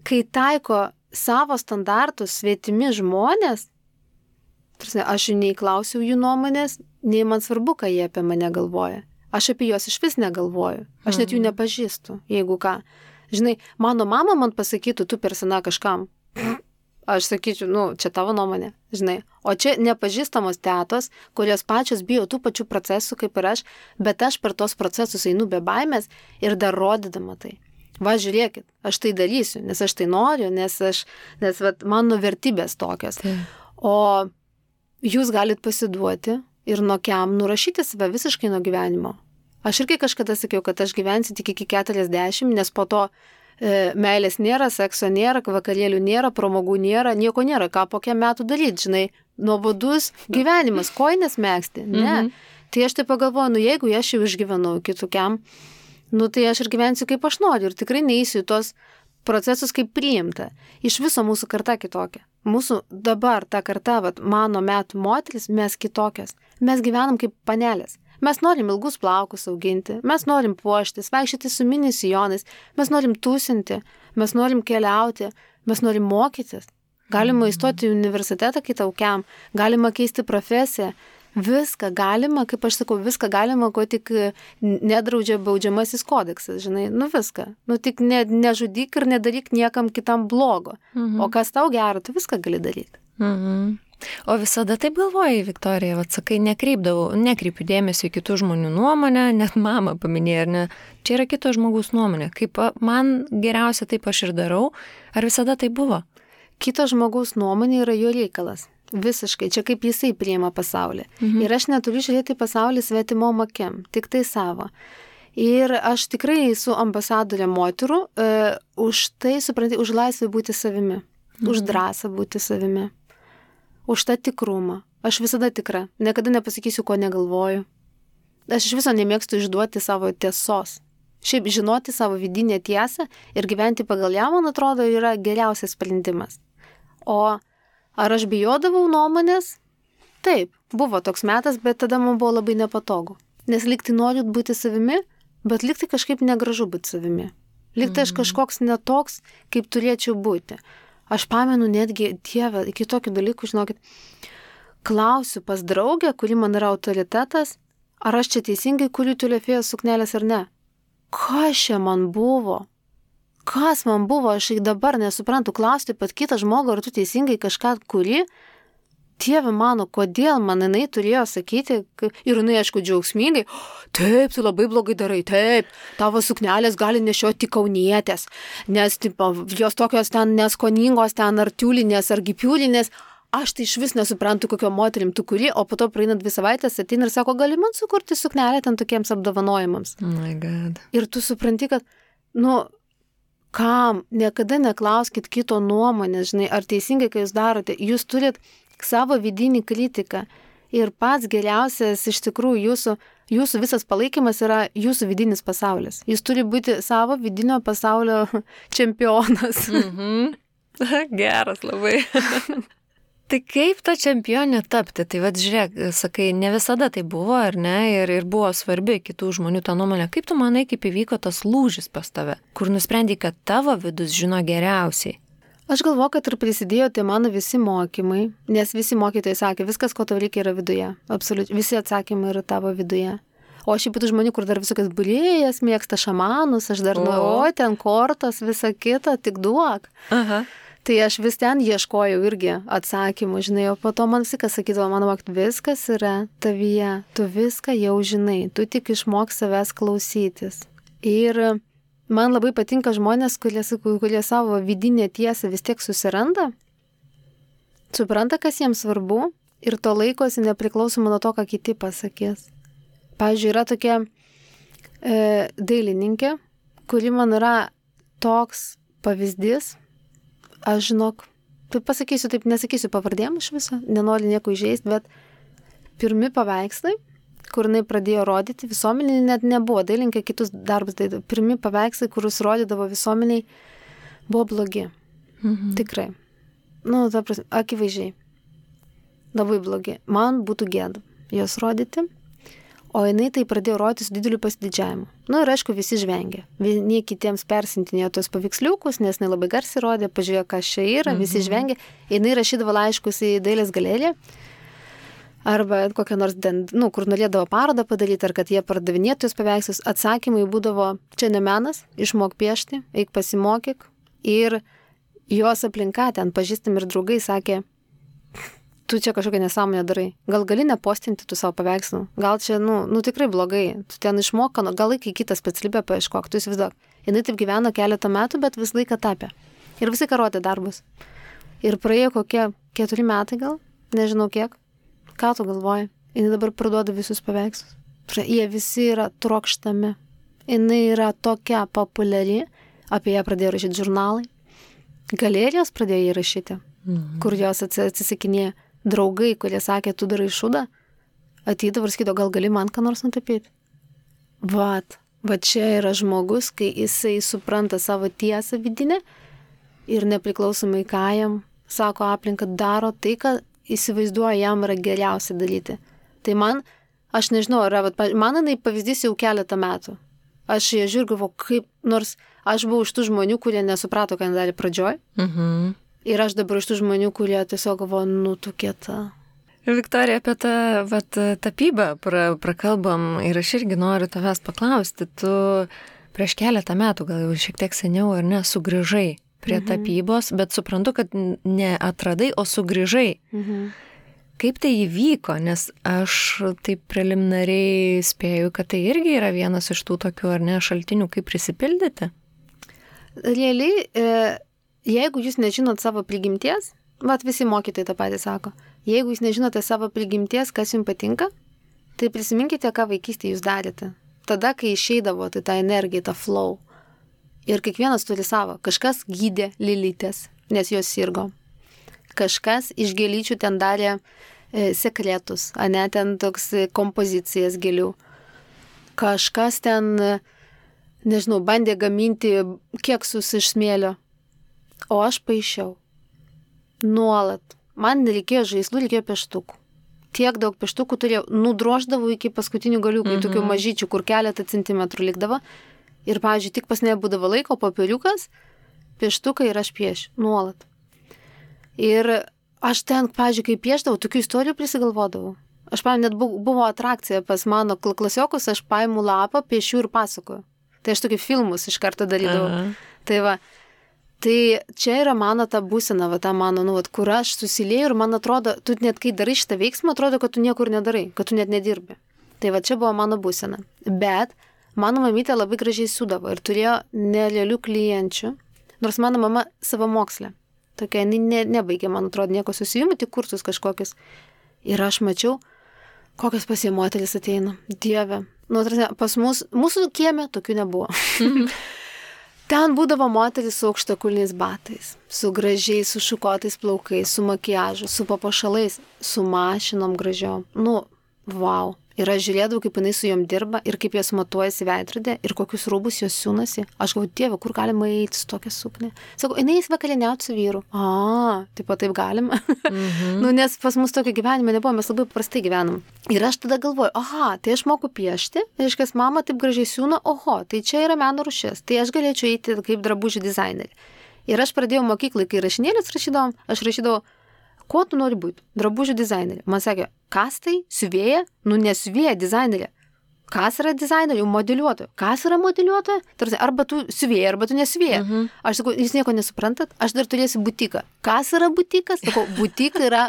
kai taiko savo standartus svetimi žmonės, aš jų nei klausiau jų nuomonės, nei man svarbu, ką jie apie mane galvoja. Aš apie juos iš vis negalvoju. Aš net jų nepažįstu, jeigu ką. Žinai, mano mama man pasakytų, tu per sena kažkam. Aš sakyčiau, čia tavo nuomonė, žinai. O čia nepažįstamos tetos, kurios pačios bijo tų pačių procesų kaip ir aš, bet aš per tos procesus einu be baimės ir dar rodydama tai. Va, žiūrėkit, aš tai darysiu, nes aš tai noriu, nes mano vertybės tokios. O jūs galit pasiduoti ir nokiam nurašyti save visiškai nuo gyvenimo. Aš irgi kažkada sakiau, kad aš gyvensiu tik iki 40, nes po to meilės nėra, sekso nėra, vakarėlių nėra, pramogų nėra, nieko nėra, ką po kiek metų daryti, žinai, nuobodus gyvenimas, kojines megzti, ne. Tai aš tai pagalvoju, jeigu aš jau išgyvenau kitokiam, tai aš ir gyvensiu kaip aš noriu ir tikrai neįsiu į tos procesus kaip priimta. Iš viso mūsų karta kitokia. Mūsų dabar ta karta, mano metų moteris, mes kitokios. Mes gyvenam kaip panelės. Mes norim ilgus plaukus auginti, mes norim puoštis, vaikščioti su mini sijonais, mes norim tūsinti, mes norim keliauti, mes norim mokytis. Galima įstoti į universitetą kitaukiam, galima keisti profesiją. Viską galima, kaip aš sakau, viską galima, ko tik nedraudžia baudžiamasis kodeksas, žinai, viską. Tik nežudyk ir nedaryk niekam kitam blogo. O kas tau gero, tai viską gali daryti. O visada taip galvojai, Viktorija, sakai, nekreipiu dėmesio į kitų žmonių nuomonę, net mama paminėjo, ar ne, čia yra kito žmogaus nuomonė. Kaip man geriausia taip aš ir darau, ar visada tai buvo? Kito žmogaus nuomonė yra jo reikalas. Visiškai, čia kaip jisai priima pasaulį. Ir aš neturiu žiūrėti pasaulį svetimom akim, tik tai savo. Ir aš tikrai esu ambasadorė moterų, už tai, supranti, už laisvę būti savimi, už drąsą būti savimi, už tą tikrumą. Aš visada tikra, niekada nepasakysiu, ko negalvoju. Aš iš viso nemėgstu išduoti savo tiesos. Šiaip žinoti savo vidinę tiesą ir gyventi pagal ją, man atrodo, yra geriausias sprendimas. O ar aš bijodavau nuomonės? Taip, buvo toks metas, bet tada man buvo labai nepatogu. Nes likti noriu būti savimi, bet likti kažkaip negražu būti savimi. Likti aš kažkoks netoks, kaip turėčiau būti. Aš pamenu netgi, Dieve, iki tokių dalykų, žinokit, klausiu pas draugę, kuri man yra autoritetas, ar aš čia teisingai kuriu tiulefėjos suknelės ar ne. Kas čia man buvo? Kas man buvo? Aš ir dabar nesuprantu, klausti pat kitą žmogų, ar tu teisingai kažką kuri. Dieve mano, kodėl man jinai turėjo sakyti, ir jinai, aišku, džiaugsmingai, taip, tu labai blogai darai, taip, tavo suknelės gali nešioti tik kaunietės, nes tipo, jos tokios ten neskoningos, ten ar tiulinės, ar gipiulinės, aš tai iš vis nesuprantu, kokio moterim tu kuri, o po to praeina 2 savaitės, ateina ir sako, gali man sukurti suknelę ten tokiems apdovanojimams. Oh my God. Ir tu supranti, kad, kam, niekada neklauskit kito nuomonės, žinai, ar teisingai, kai jūs darote, jūs turit savo vidinį kritiką ir pats geriausias iš tikrųjų jūsų visas palaikymas yra jūsų vidinis pasaulis. Jūs turi būti savo vidinio pasaulio čempionas. Geras labai. Tai kaip ta čempionė tapti? Tai vad žiūrėk, sakai, ne visada tai buvo, ar ne? Ir buvo svarbi kitų žmonių ta nuomonė. Kaip tu manai, kaip įvyko tas lūžis pas tave, kur nusprendai, kad tavo vidus žino geriausiai? Aš galvoju, kad ir prisidėjo tai mano visi mokymai, nes visi mokytojai sakė, viskas, ko tau reikia, yra viduje. Absoliučiai, visi atsakymai yra tavo viduje. O aš ypatų žmonių, kur dar visokias būrėjas, mėgsta šamanus, aš dar ten kortos, visa kita, tik duok. Aha. Tai aš vis ten ieškojau irgi atsakymų, žinai, o po to man viskas sakydavo, mano mokyt, viskas yra tavyje, tu viską jau žinai, tu tik išmok savęs klausytis. Ir man labai patinka žmonės, kurie savo vidinę tiesą vis tiek susiranda, supranta, kas jiems svarbu ir to laikosi nepriklausomai nuo to, ką kiti pasakys. Pavyzdžiui, yra tokia dailininkė, kuri man yra toks pavyzdys, aš žinok, taip pasakysiu, taip nesakysiu pavardėm iš viso, nenoriu nieko įžeisti, bet pirmi paveikslai, kur jinai pradėjo rodyti, visuomeniai net nebuvo, dailinkė kitus darbus daidavo. Pirmi paveikslai, kurus rodydavo visuomeniai, buvo blogi. Tikrai. Ta prasme, akivaizdžiai. Labai blogi. Man būtų gėda jos rodyti, o jinai tai pradėjo rodyti su dideliu pasididžiavimu. Ir aišku, visi žvengė. Vieni kitiems persintinėjo tos paveiksliukus, nes jinai labai garsiai rodė, pažiūrėjo, kas čia yra, visi žvengė. Jinai rašydavo laiškus į dailės galeriją, arba kokią nors, kur norėdavo parodą padaryti, ar kad jie pardavinėtų jos paveikslus, atsakymai būdavo, čia ne menas, išmok piešti, eik pasimokyk. Ir jos aplinka ten pažįstami ir draugai sakė, tu čia kažkokią nesąmonę darai, gal gali nepostinti tų savo paveikslų, gal čia, tikrai blogai, tu ten išmok, gal laikai kitą specialybę paieškok, tu įsivaizduok. Jinai taip gyveno keletą metų, bet vis laiką tapė. Ir visi rodė darbus. Ir praėjo kokie 4 metai gal, nežinau kiek. Ką tu galvoji? Jis dabar parduoda visus paveikslus. Jie visi yra trokštami. Jis yra tokia populiari. Apie ją pradėjo rašyti žurnalai. Galerijos pradėjo jį rašyti. Kur jos atsisakinėjo. Draugai, kurie sakė, tu darai šūdą, ateidavo ir sakydavo, gal gali man ką nors nutapyti. Va čia yra žmogus, kai jisai supranta savo tiesą vidinę ir nepriklausomai ką jam sako aplinka, daro tai, kad įsivaizduoja, jam yra geriausia daryti. Tai aš nežinau, man jinai pavyzdys jau keletą metų. Aš ją žiūrėjau, kaip, nors aš buvau iš tų žmonių, kurie nesuprato, ką darė pradžioj. Ir aš dabar iš tų žmonių, kurie tiesiog galvoja, tu kieta. Viktorija, apie tą tapybą prakalbam ir aš irgi noriu tavęs paklausti. Tu prieš keletą metų, gal jau šiek tiek seniau ar ne, sugrįžai prie tapybos, bet suprantu, kad ne atradai, o sugrįžai. Kaip tai įvyko, nes aš taip preliminariai spėju, kad tai irgi yra vienas iš tų tokių, ar ne, šaltinių, kaip prisipildyti? Realiai, jeigu jūs nežinot savo prigimties, visi mokytojai tą patį sako, jeigu jūs nežinote savo prigimties, kas jums patinka, tai prisiminkite, ką vaikystėje jūs darėte. tada, kai išeidavo, tai ta energija, ta flow. Ir kiekvienas turi savo. Kažkas gydė lilytės, nes jos sirgo. Kažkas iš gėlyčių ten darė sekretus, ane, ten toks kompozicijas gėlių. Kažkas ten, nežinau, bandė gaminti keksus iš smėlio. O aš paišiau. Nuolat. Man nereikėjo žaislų, reikėjo pieštukų. Tiek daug pieštukų turėjau. Nudroždavau iki paskutinių galiukų, tokių mažyčių, kur keletą centimetrų likdavo. Ir, pavyzdžiui, tik pas nebūdavo laiko, popieriukas, pieštukai ir aš piešiu. Nuolat. Ir aš ten, pavyzdžiui, kai pieždavau, tokių istorijų prisigalvodavau. Aš, pavyzdžiui, net buvo atrakcija pas mano klasiokus, aš paimu lapą, piešiu ir pasakoju. Tai aš tokį filmus iš karto darydavau. Tai va, tai čia yra mano ta būsena, va, ta mano, nu, va, kur aš susilieju ir man atrodo, tu net kai darai šitą veiksmą, atrodo, kad tu niekur nedarai, kad tu net nedirbi. Tai va, čia buvo mano būsena. Bet mano mamytė labai gražiai siūdavo ir turėjo nerealių klienčių, nors mano mama savamokslė. Tokia, nebaigė, man atrodo, nieko susijimų, tik kursus kažkokius. Ir aš mačiau, kokios pas jie moteris ateina. Dieve. Nu, pas mūsų kieme tokių nebuvo. Ten būdavo moteris su aukštakulniais batais, su gražiais, su šukotais plaukais, su makiažu, su papuošalais, su mašinom gražiom. Nu, wow. Ir aš žiūrėdavau, kaip jinai su jom dirba ir kaip jos matuojasi veidrodė ir kokius rūbus jos siūnasi. Aš galvoju, Dieve, kur galima eiti su tokia suknė? Sakau, jinai vakarieniauti su vyru. Taip galima. Nu, nes pas mus tokio gyvenimo nebuvo, mes labai paprastai gyvenam. Ir aš tada galvoju, tai aš moku piešti, reiškia, mama taip gražiai siūna, tai čia yra meno rūšis, tai aš galėčiau eiti kaip drabužių dizainerį. Ir aš pradėjau mokyklai, kai rašinėlius rašydavom, aš rašydavau, ko tu nori būti? Drabužių dizainerė. Man sakė, kas tai? Siuvėja? Nu, nesiuvėja dizainerė. Kas yra dizainerė? Modeliuotoja. Kas yra modeliuotoja? Tarsi, arba tu siuvėja, arba tu nesiuvėja. Aš sakau, jūs nieko nesuprantat? Aš dar turėsiu butiką. Kas yra butikas? Sakau, butika yra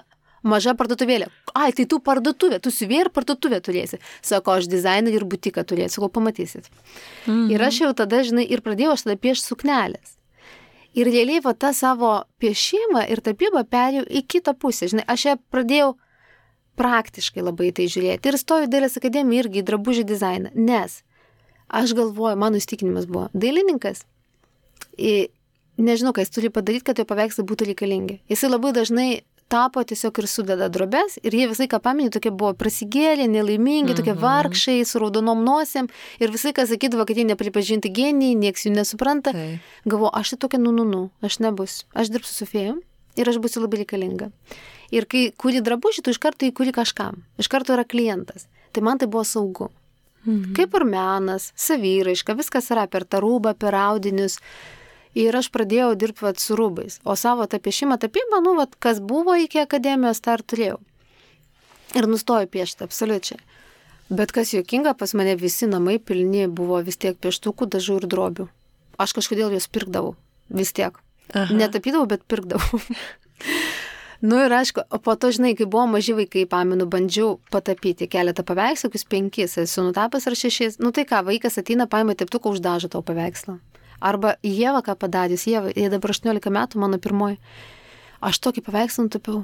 maža parduotuvėlė. Tai tu parduotuvė, tu siuvėja ir parduotuvė turėsi. Sako, aš dizainerį ir butiką turėsiu. Sakau, pamatysit. Ir aš jau tada, žinai, ir pradėjau aš tada piešti suknelės. Ir realiai va tą savo piešimą ir tapybą perėjau į kitą pusę. Žinai, aš ją pradėjau praktiškai labai tai žiūrėti. Ir stojau į Dailės akademiją irgi į drabužių dizainą. Nes aš galvoju, mano įstikinimas buvo, dailininkas, nežinau, ką jis turi padaryti, kad jo paveikslai būtų reikalingi. Jisai labai dažnai tapo tiesiog ir sudeda drobes ir jie visai, ką paminė, tokie buvo prasigėlė, nelaimingi, tokie vargšai, su raudonom nosėm ir visai, ką sakydavo, kad jie nepripažinti genijai, nieks jų nesupranta. Galvoju, aš tai tokia, aš nebus. Aš dirbsiu su fėjom ir aš būsiu labai reikalinga. Ir kai kuri drabužį, tu iš karto įkuri kažkam. Iš karto yra klientas. Tai man tai buvo saugu. Kaip ir menas, savyraiška, viskas yra per tą rūbą, per audinius. Ir aš pradėjau dirbti su rūbais. O savo tą piešimą, tapybą, kas buvo iki akademijos, tą ir turėjau. Ir nustojau piešti, absoliučiai. Bet kas juokinga, pas mane visi namai pilni buvo vis tiek pieštukų, dažų ir drobių. Aš kažkodėl juos pirkdavau. Vis tiek. Netapydavau, bet pirkdavau. Nu ir aišku, o po to, žinai, kai buvo maži vaikai, pamenu, bandžiau patapyti keletą paveikslų, 5, esu nutapęs ar 6. Nu tai ką, vaikas ateina, paima teptuką, uždažo tavo paveikslą. Arba Ieva, ką padarys, Ieva, jie dabar 18 metų, mano pirmoji. Aš tokį paveikslą nutapiau.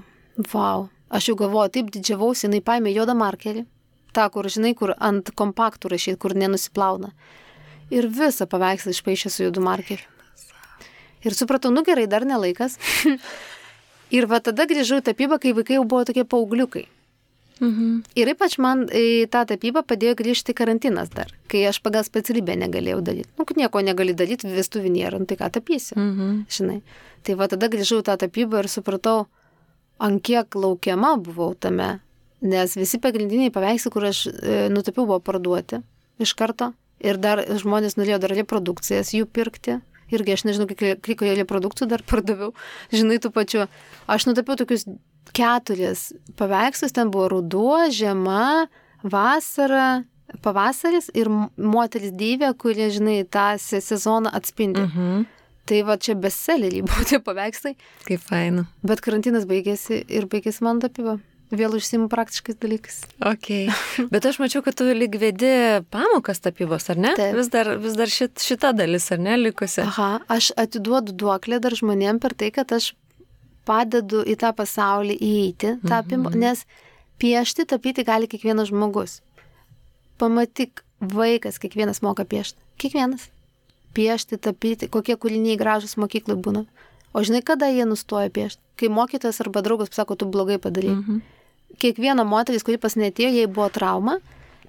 Vau. Aš jau galvoju, taip didžiavausi, jinai paėmė juodą markerį. Ta, kur, žinai, kur ant kompaktų rašyti, kur nenusiplauna. Ir visą paveikslą išpaišė su juodu markeriu. Ir supratau, nu gerai, dar nelaikas. Ir va tada grįžau į tapybą, kai vaikai jau buvo tokie paaugliukai. Ir ypač man į tą tapybą padėjo grįžti karantinas dar, kai aš pagal specialybę negalėjau daryti. Nu, kad nieko negali daryti, vestuvių nėra, tai ką tapysi, žinai. Tai va tada grįžau į tą tapybą ir supratau, ant kiek laukiama buvau tame, nes visi pagrindiniai paveikslai, kur aš nutapiau, buvo parduoti iš karto. Ir dar žmonės norėjo dar reprodukcijas jų pirkti. Irgi aš nežinau, kiek reprodukcijų dar pardaviau. Žinai, tų pačių. Aš nutapiau tokius 4 paveikslus, ten buvo ruduo, žiema, vasara, pavasaris ir moteris deivė, kurie, žinai, tą sezoną atspindi. Tai va čia bestseleriai buvo tie paveikslai. Kaip faina. Bet karantinas baigėsi ir baigėsi man tapyba. Vėl užsiimu praktiškais dalykais. Ok. Bet aš mačiau, kad tu lyg vedi pamokas tapybos, ar ne? Taip. Vis dar šita dalis, ar ne, likusi? Aš atiduodu duoklę dar žmonėm per tai, kad aš padedu į tą pasaulį įeiti, tapybą, nes piešti, tapyti gali kiekvienas žmogus. Pamatyk, vaikas, kiekvienas moka piešti. Kiekvienas. Piešti, tapyti, kokie kūriniai gražus mokyklai būna. O žinai, kada jie nustoja piešti? Kai mokytojas arba draugas pasako, tu blogai padarei. Kiekviena moteris, kuri pas neatėjo, jai buvo trauma,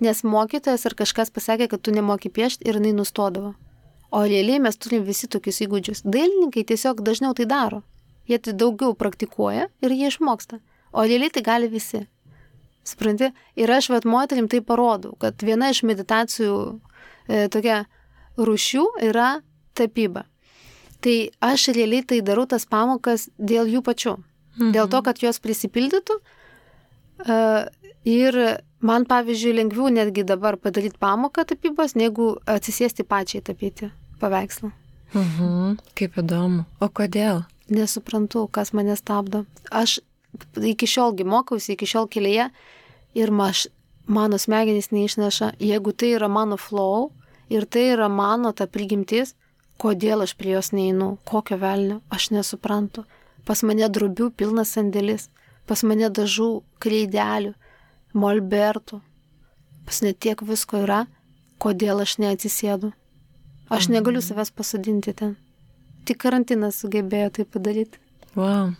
nes mokytojas ar kažkas pasakė, kad tu nemoki piešti ir jinai nustodavo. O realiai mes turim visi tokius įgūdžius. Dailininkai tiesiog dažniau tai daro. Jie tai daugiau praktikuoja ir jie išmoksta. O realiai tai gali visi. Supranti? Ir aš moterim tai parodau, kad viena iš meditacijų tokia rūšių yra tapyba. Tai aš realiai tai darau tas pamokas dėl jų pačių. Dėl to, kad jos prisipildytų. Ir man, pavyzdžiui, lengviau netgi dabar padaryti pamoką tapybos, negu atsisėsti pačiai tapyti paveikslą. Kaip įdomu. O kodėl? Nesuprantu, kas mane stabdo. Aš iki šiolgi mokausi, iki šiol kelyje ir mano smegenys neišneša, jeigu tai yra mano flow ir tai yra mano ta prigimtis, kodėl aš prie jos neinu, kokio velnio, aš nesuprantu. Pas mane drobių pilnas sandėlis, pas mane dažų, kreidelių, molbertų, pas net tiek visko yra, kodėl aš neatsisėdu. Aš negaliu savęs pasodinti ten. Tik karantinas sugebėjo tai padaryti. Wow.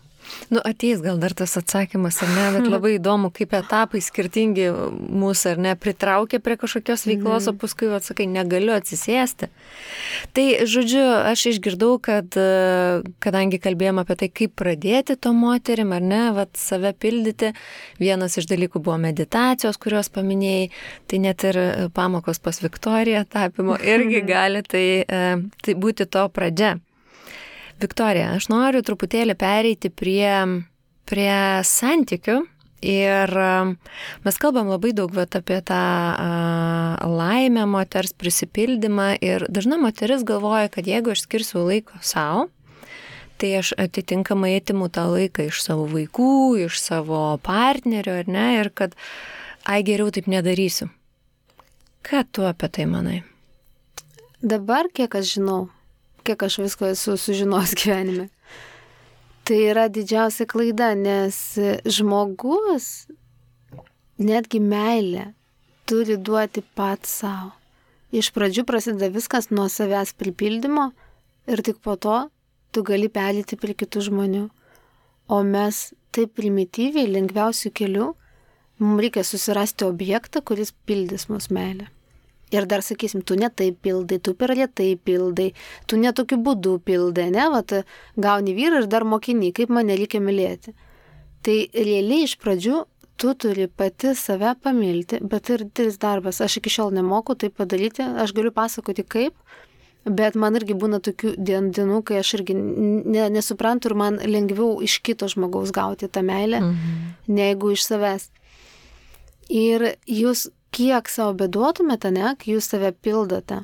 Ateis gal dar tas atsakymas, ar ne, bet labai įdomu, kaip etapai skirtingi mūsų, ar ne, pritraukia prie kažkokios veiklos, o paskui atsakai, negaliu atsisėsti. Tai, žodžiu, aš išgirdau, kad kadangi kalbėjom apie tai, kaip pradėti to moterim, ar ne, save pildyti, vienas iš dalykų buvo meditacijos, kurios paminėjai, tai net ir pamokos pas Viktoriją tapimo irgi gali tai būti to pradžia. Viktorija, aš noriu truputėlį pereiti prie santykių ir mes kalbam labai daug apie tą laimę moters prisipildymą ir dažna moteris galvoja, kad jeigu aš skirsiu laiko savo, tai aš atitinkamai atimu tą laiką iš savo vaikų, iš savo partnerio, ar ne, ir kad geriau taip nedarysiu. Ką tu apie tai manai? Dabar, kiek aš žinau, kiek aš visko esu sužinos gyvenime. Tai yra didžiausia klaida, nes žmogus netgi meilę turi duoti pats savo. Iš pradžių prasideda viskas nuo savęs pripildymo ir tik po to tu gali pereiti prie kitų žmonių. O mes taip primityviai, lengviausių kelių, mums reikia susirasti objektą, kuris pildys mūsų meilę. Ir dar sakysim, tu ne taip pildai, tu per lėtai pildai, tu ne tokiu būdu pildai, ne, gauni vyrą ir dar mokini, kaip mane reikia mylėti. Tai realiai iš pradžių tu turi pati save pamilti, bet ir didelis darbas. Aš iki šiol nemoku tai padaryti, aš galiu pasakoti kaip, bet man irgi būna tokių dienų, kai aš irgi nesuprantu ir man lengviau iš kito žmogaus gauti tą meilę, negu iš savęs. Ir jūs kiek savo beduotumėte, ne, kai jūs save pildote,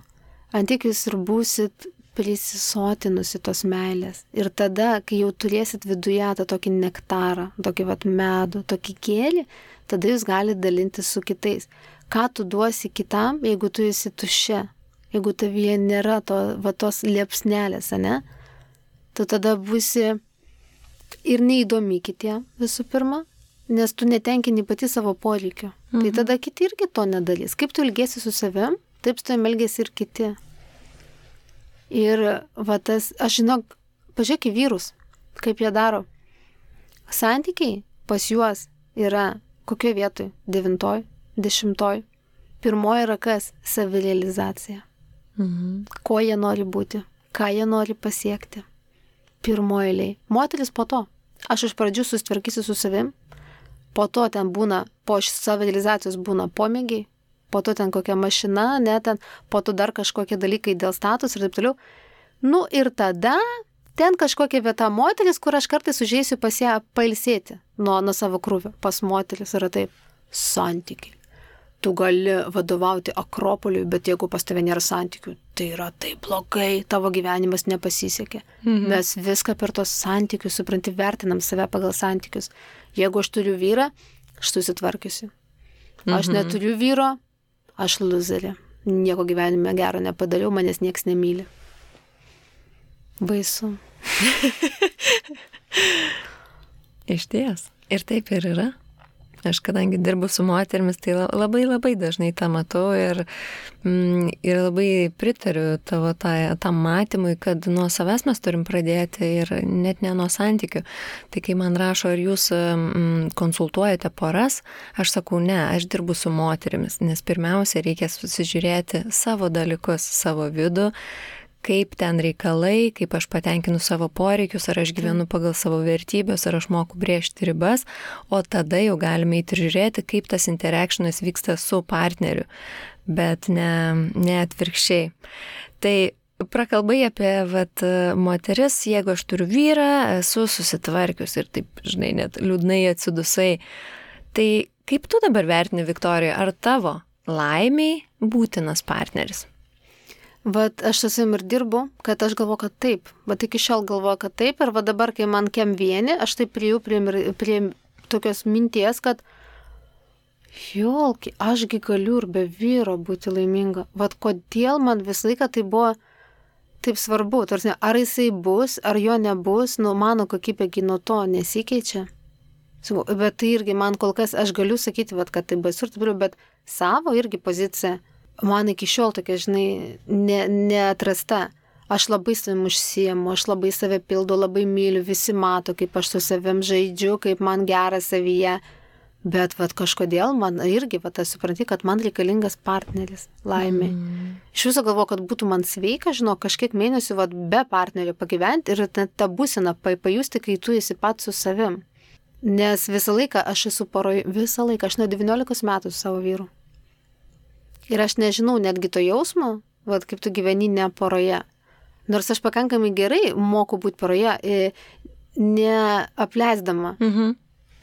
antik jūs ir būsit prisisotinusi tos meilės. Ir tada, kai jau turėsit viduje tą tokį nektarą, tokį medų, tokį gėlį, tada jūs galite dalintis su kitais. Ką tu duosi kitam, jeigu tu esi tuščia, jeigu tavyje nėra tos liepsnelės, ne, tu tada būsi ir neįdomi kitiem visų pirma, nes tu netenkini pati savo poreikio. Tai tada kiti irgi to nedarys. Kaip tu ilgėsi su savim, taip su tavim elgėsi ir kiti. Ir aš žinok, pažiūrėk į vyrus, kaip jie daro. Santykiai pas juos yra kokioje vietoje? 9, 10. Pirmoji yra kas? Savirealizacija. Ko jie nori būti, ką jie nori pasiekti. Pirmoji eilėje. Moteris po to. Aš iš pradžių susitvarkysiu su savim, po to ten būna, po savirealizacijos būna pomėgiai, po to ten kokia mašina, po to dar kažkokie dalykai dėl status ir taip toliau. Ir tada ten kažkokia vieta moteris, kur aš kartais užeisiu pas ją pailsėti nuo savo krūvio. Pas moteris yra taip, santykiai. Tu gali vadovauti Akropoliui, bet jeigu pas tave nėra santykių, tai yra taip blogai, tavo gyvenimas nepasisekė. Mes viską per tos santykius, supranti, vertinam save pagal santykius. Jeigu aš turiu vyrą, aš susitvarkiusi. Aš neturiu vyro, aš luzerė. Nieko gyvenime gero nepadariau, manęs nieks nemyli. Baisu. Išties. Ir taip ir yra. Aš kadangi dirbu su moterimis, tai labai dažnai tą matau ir labai pritariu tavo tam matymui, kad nuo savęs mes turim pradėti ir net ne nuo santykių. Tai kai man rašo, ar jūs konsultuojate poras, aš sakau, ne, aš dirbu su moterimis, nes pirmiausia reikia susižiūrėti savo dalykus, savo vidų, kaip ten reikalai, kaip aš patenkinu savo poreikius, ar aš gyvenu pagal savo vertybės, ar aš moku brėžti ribas, o tada jau galime įti ir žiūrėti, kaip tas interactionas vyksta su partneriu, bet ne atvirkščiai. Tai prakalbai apie moteris, jeigu aš turiu vyrą, esu susitvarkius ir taip, žinai, net liūdnai atsidusai. Tai kaip tu dabar vertini, Viktorija, ar tavo laimiai būtinas partneris? Vat aš su savim ir dirbu, kad aš galvoju, kad taip. Vat iki šiol galvoju, kad taip. Ir va dabar, kai man kem vieni, aš taip prie tokios minties, kad jolki, ašgi galiu ir be vyro būti laiminga. Vat kodėl man visą laiką tai buvo taip svarbu. Tarsi, ar jisai bus, ar jo nebus, mano kokybėgi nuo to nesikeičia. Bet tai irgi man kol kas, aš galiu sakyti, vat, kad tai baisu ir taip, bet savo irgi poziciją. Man iki šiol tokia, žinai, neatrasta. Aš labai savim užsiemu, aš labai save pildu, labai myliu, visi mato, kaip aš su savim žaidžiu, kaip man gera savyje. Bet vat kažkodėl man irgi, vat aš supranti, kad man reikalingas partneris laimė. Iš viso galvoju, kad būtų man sveika, žinau, kažkiek mėnesių vat be partnerio pagyventi ir tą būseną pajusti, kai tu esi pats su savim. Nes visą laiką aš esu poroje, visą laiką, aš nuo 19 metų su savo vyru. Ir aš nežinau netgi to jausmo, vat kaip tu gyveni ne poroje. Nors aš pakankamai gerai moku būti poroje, neapleisdama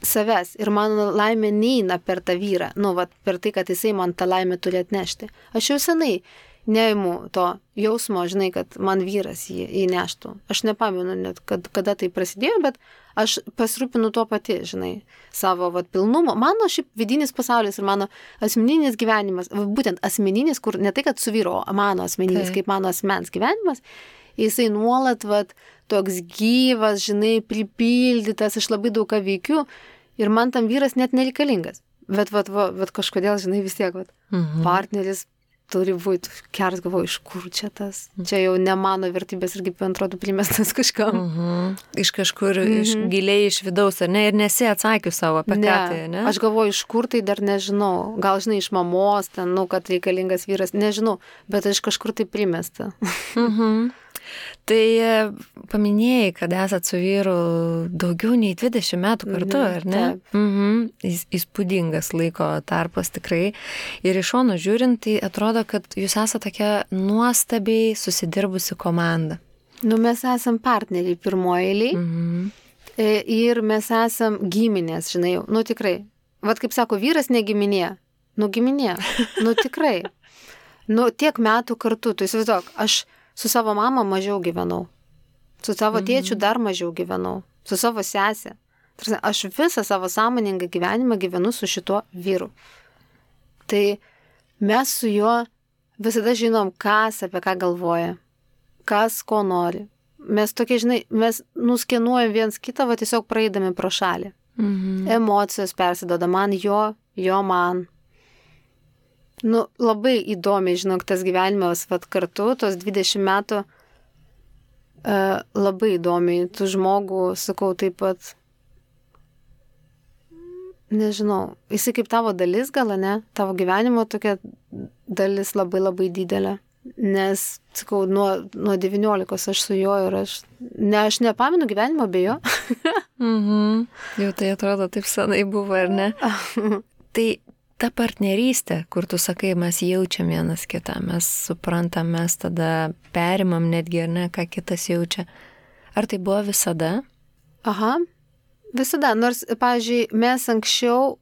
savęs. Ir mano laimė neina per tą vyrą. Vat per tai, kad jisai man tą laimę turi atnešti. Aš jau senai neimu to jausmo, žinai, kad man vyras jį įneštų. Aš nepamenu net, kada tai prasidėjo, bet aš pasirūpinu tuo pati, žinai, savo pilnumo. Mano šiaip vidinis pasaulis ir mano asmeninis gyvenimas, būtent asmeninis, kur ne tai, kad su vyro, mano asmeninis, kaip mano asmens gyvenimas, jisai nuolat toks gyvas, žinai, pripildytas, aš labai daug ką veikiu ir man tam vyras net nereikalingas. Bet kažkodėl, žinai, vis tiek, partneris turi būti, keras galvoju, iš kur čia tas? Čia jau ne mano vertybės irgi, atrodo, primestas kažkam. Iš kažkur, giliai iš vidaus, ar ne? Ir nesi atsakius savo apie ką tai, ne? Aš galvoju, iš kur tai dar nežinau. Gal, žinai, iš mamos, ten, kad reikalingas vyras, nežinau, bet iš kažkur tai primesta. Tai paminėjai, kad esat su vyru daugiau nei 20 metų kartu, ar ne? Įspūdingas laiko tarpas tikrai. Ir iš šono žiūrint, tai atrodo, kad jūs esate tokia nuostabiai susidirbusi komanda. Mes esam partneriai pirmoje eilėje ir mes esam giminės, žinai, tikrai. Vat kaip sako, vyras ne giminė. Giminė. Tikrai. Tiek metų kartu, tu įsivaizduok, aš su savo mama mažiau gyvenau. Su savo tėčiu dar mažiau gyvenau. Su savo sesė. Aš visą savo sąmoningą gyvenimą gyvenu su šituo vyru. Tai mes su juo visada žinom, kas apie ką galvoja. Kas ko nori. Mes tokie, žinai, mes nuskenuojam viens kitą, tiesiog praeidami pro šalį. Emocijos persidoda man jo man. Labai įdomiai, žinok, tas gyvenimas kartu, tos 20 metų, labai įdomiai, tu žmogų, sakau, taip pat, nežinau, jisai kaip tavo dalis gal, ne, tavo gyvenimo tokia dalis labai labai didelė, nes, sakau, nuo 19 aš su juo ir aš nepamenu gyvenimo be jo. Jau tai atrodo taip senai buvo, ar ne? Tai ta partnerystė, kur tu sakai, mes jaučiam vienas kitą, mes suprantam, mes tada perimam netgi, ar ne, ką kitas jaučia. Ar tai buvo visada? Visada. Nors, pavyzdžiui, mes anksčiau,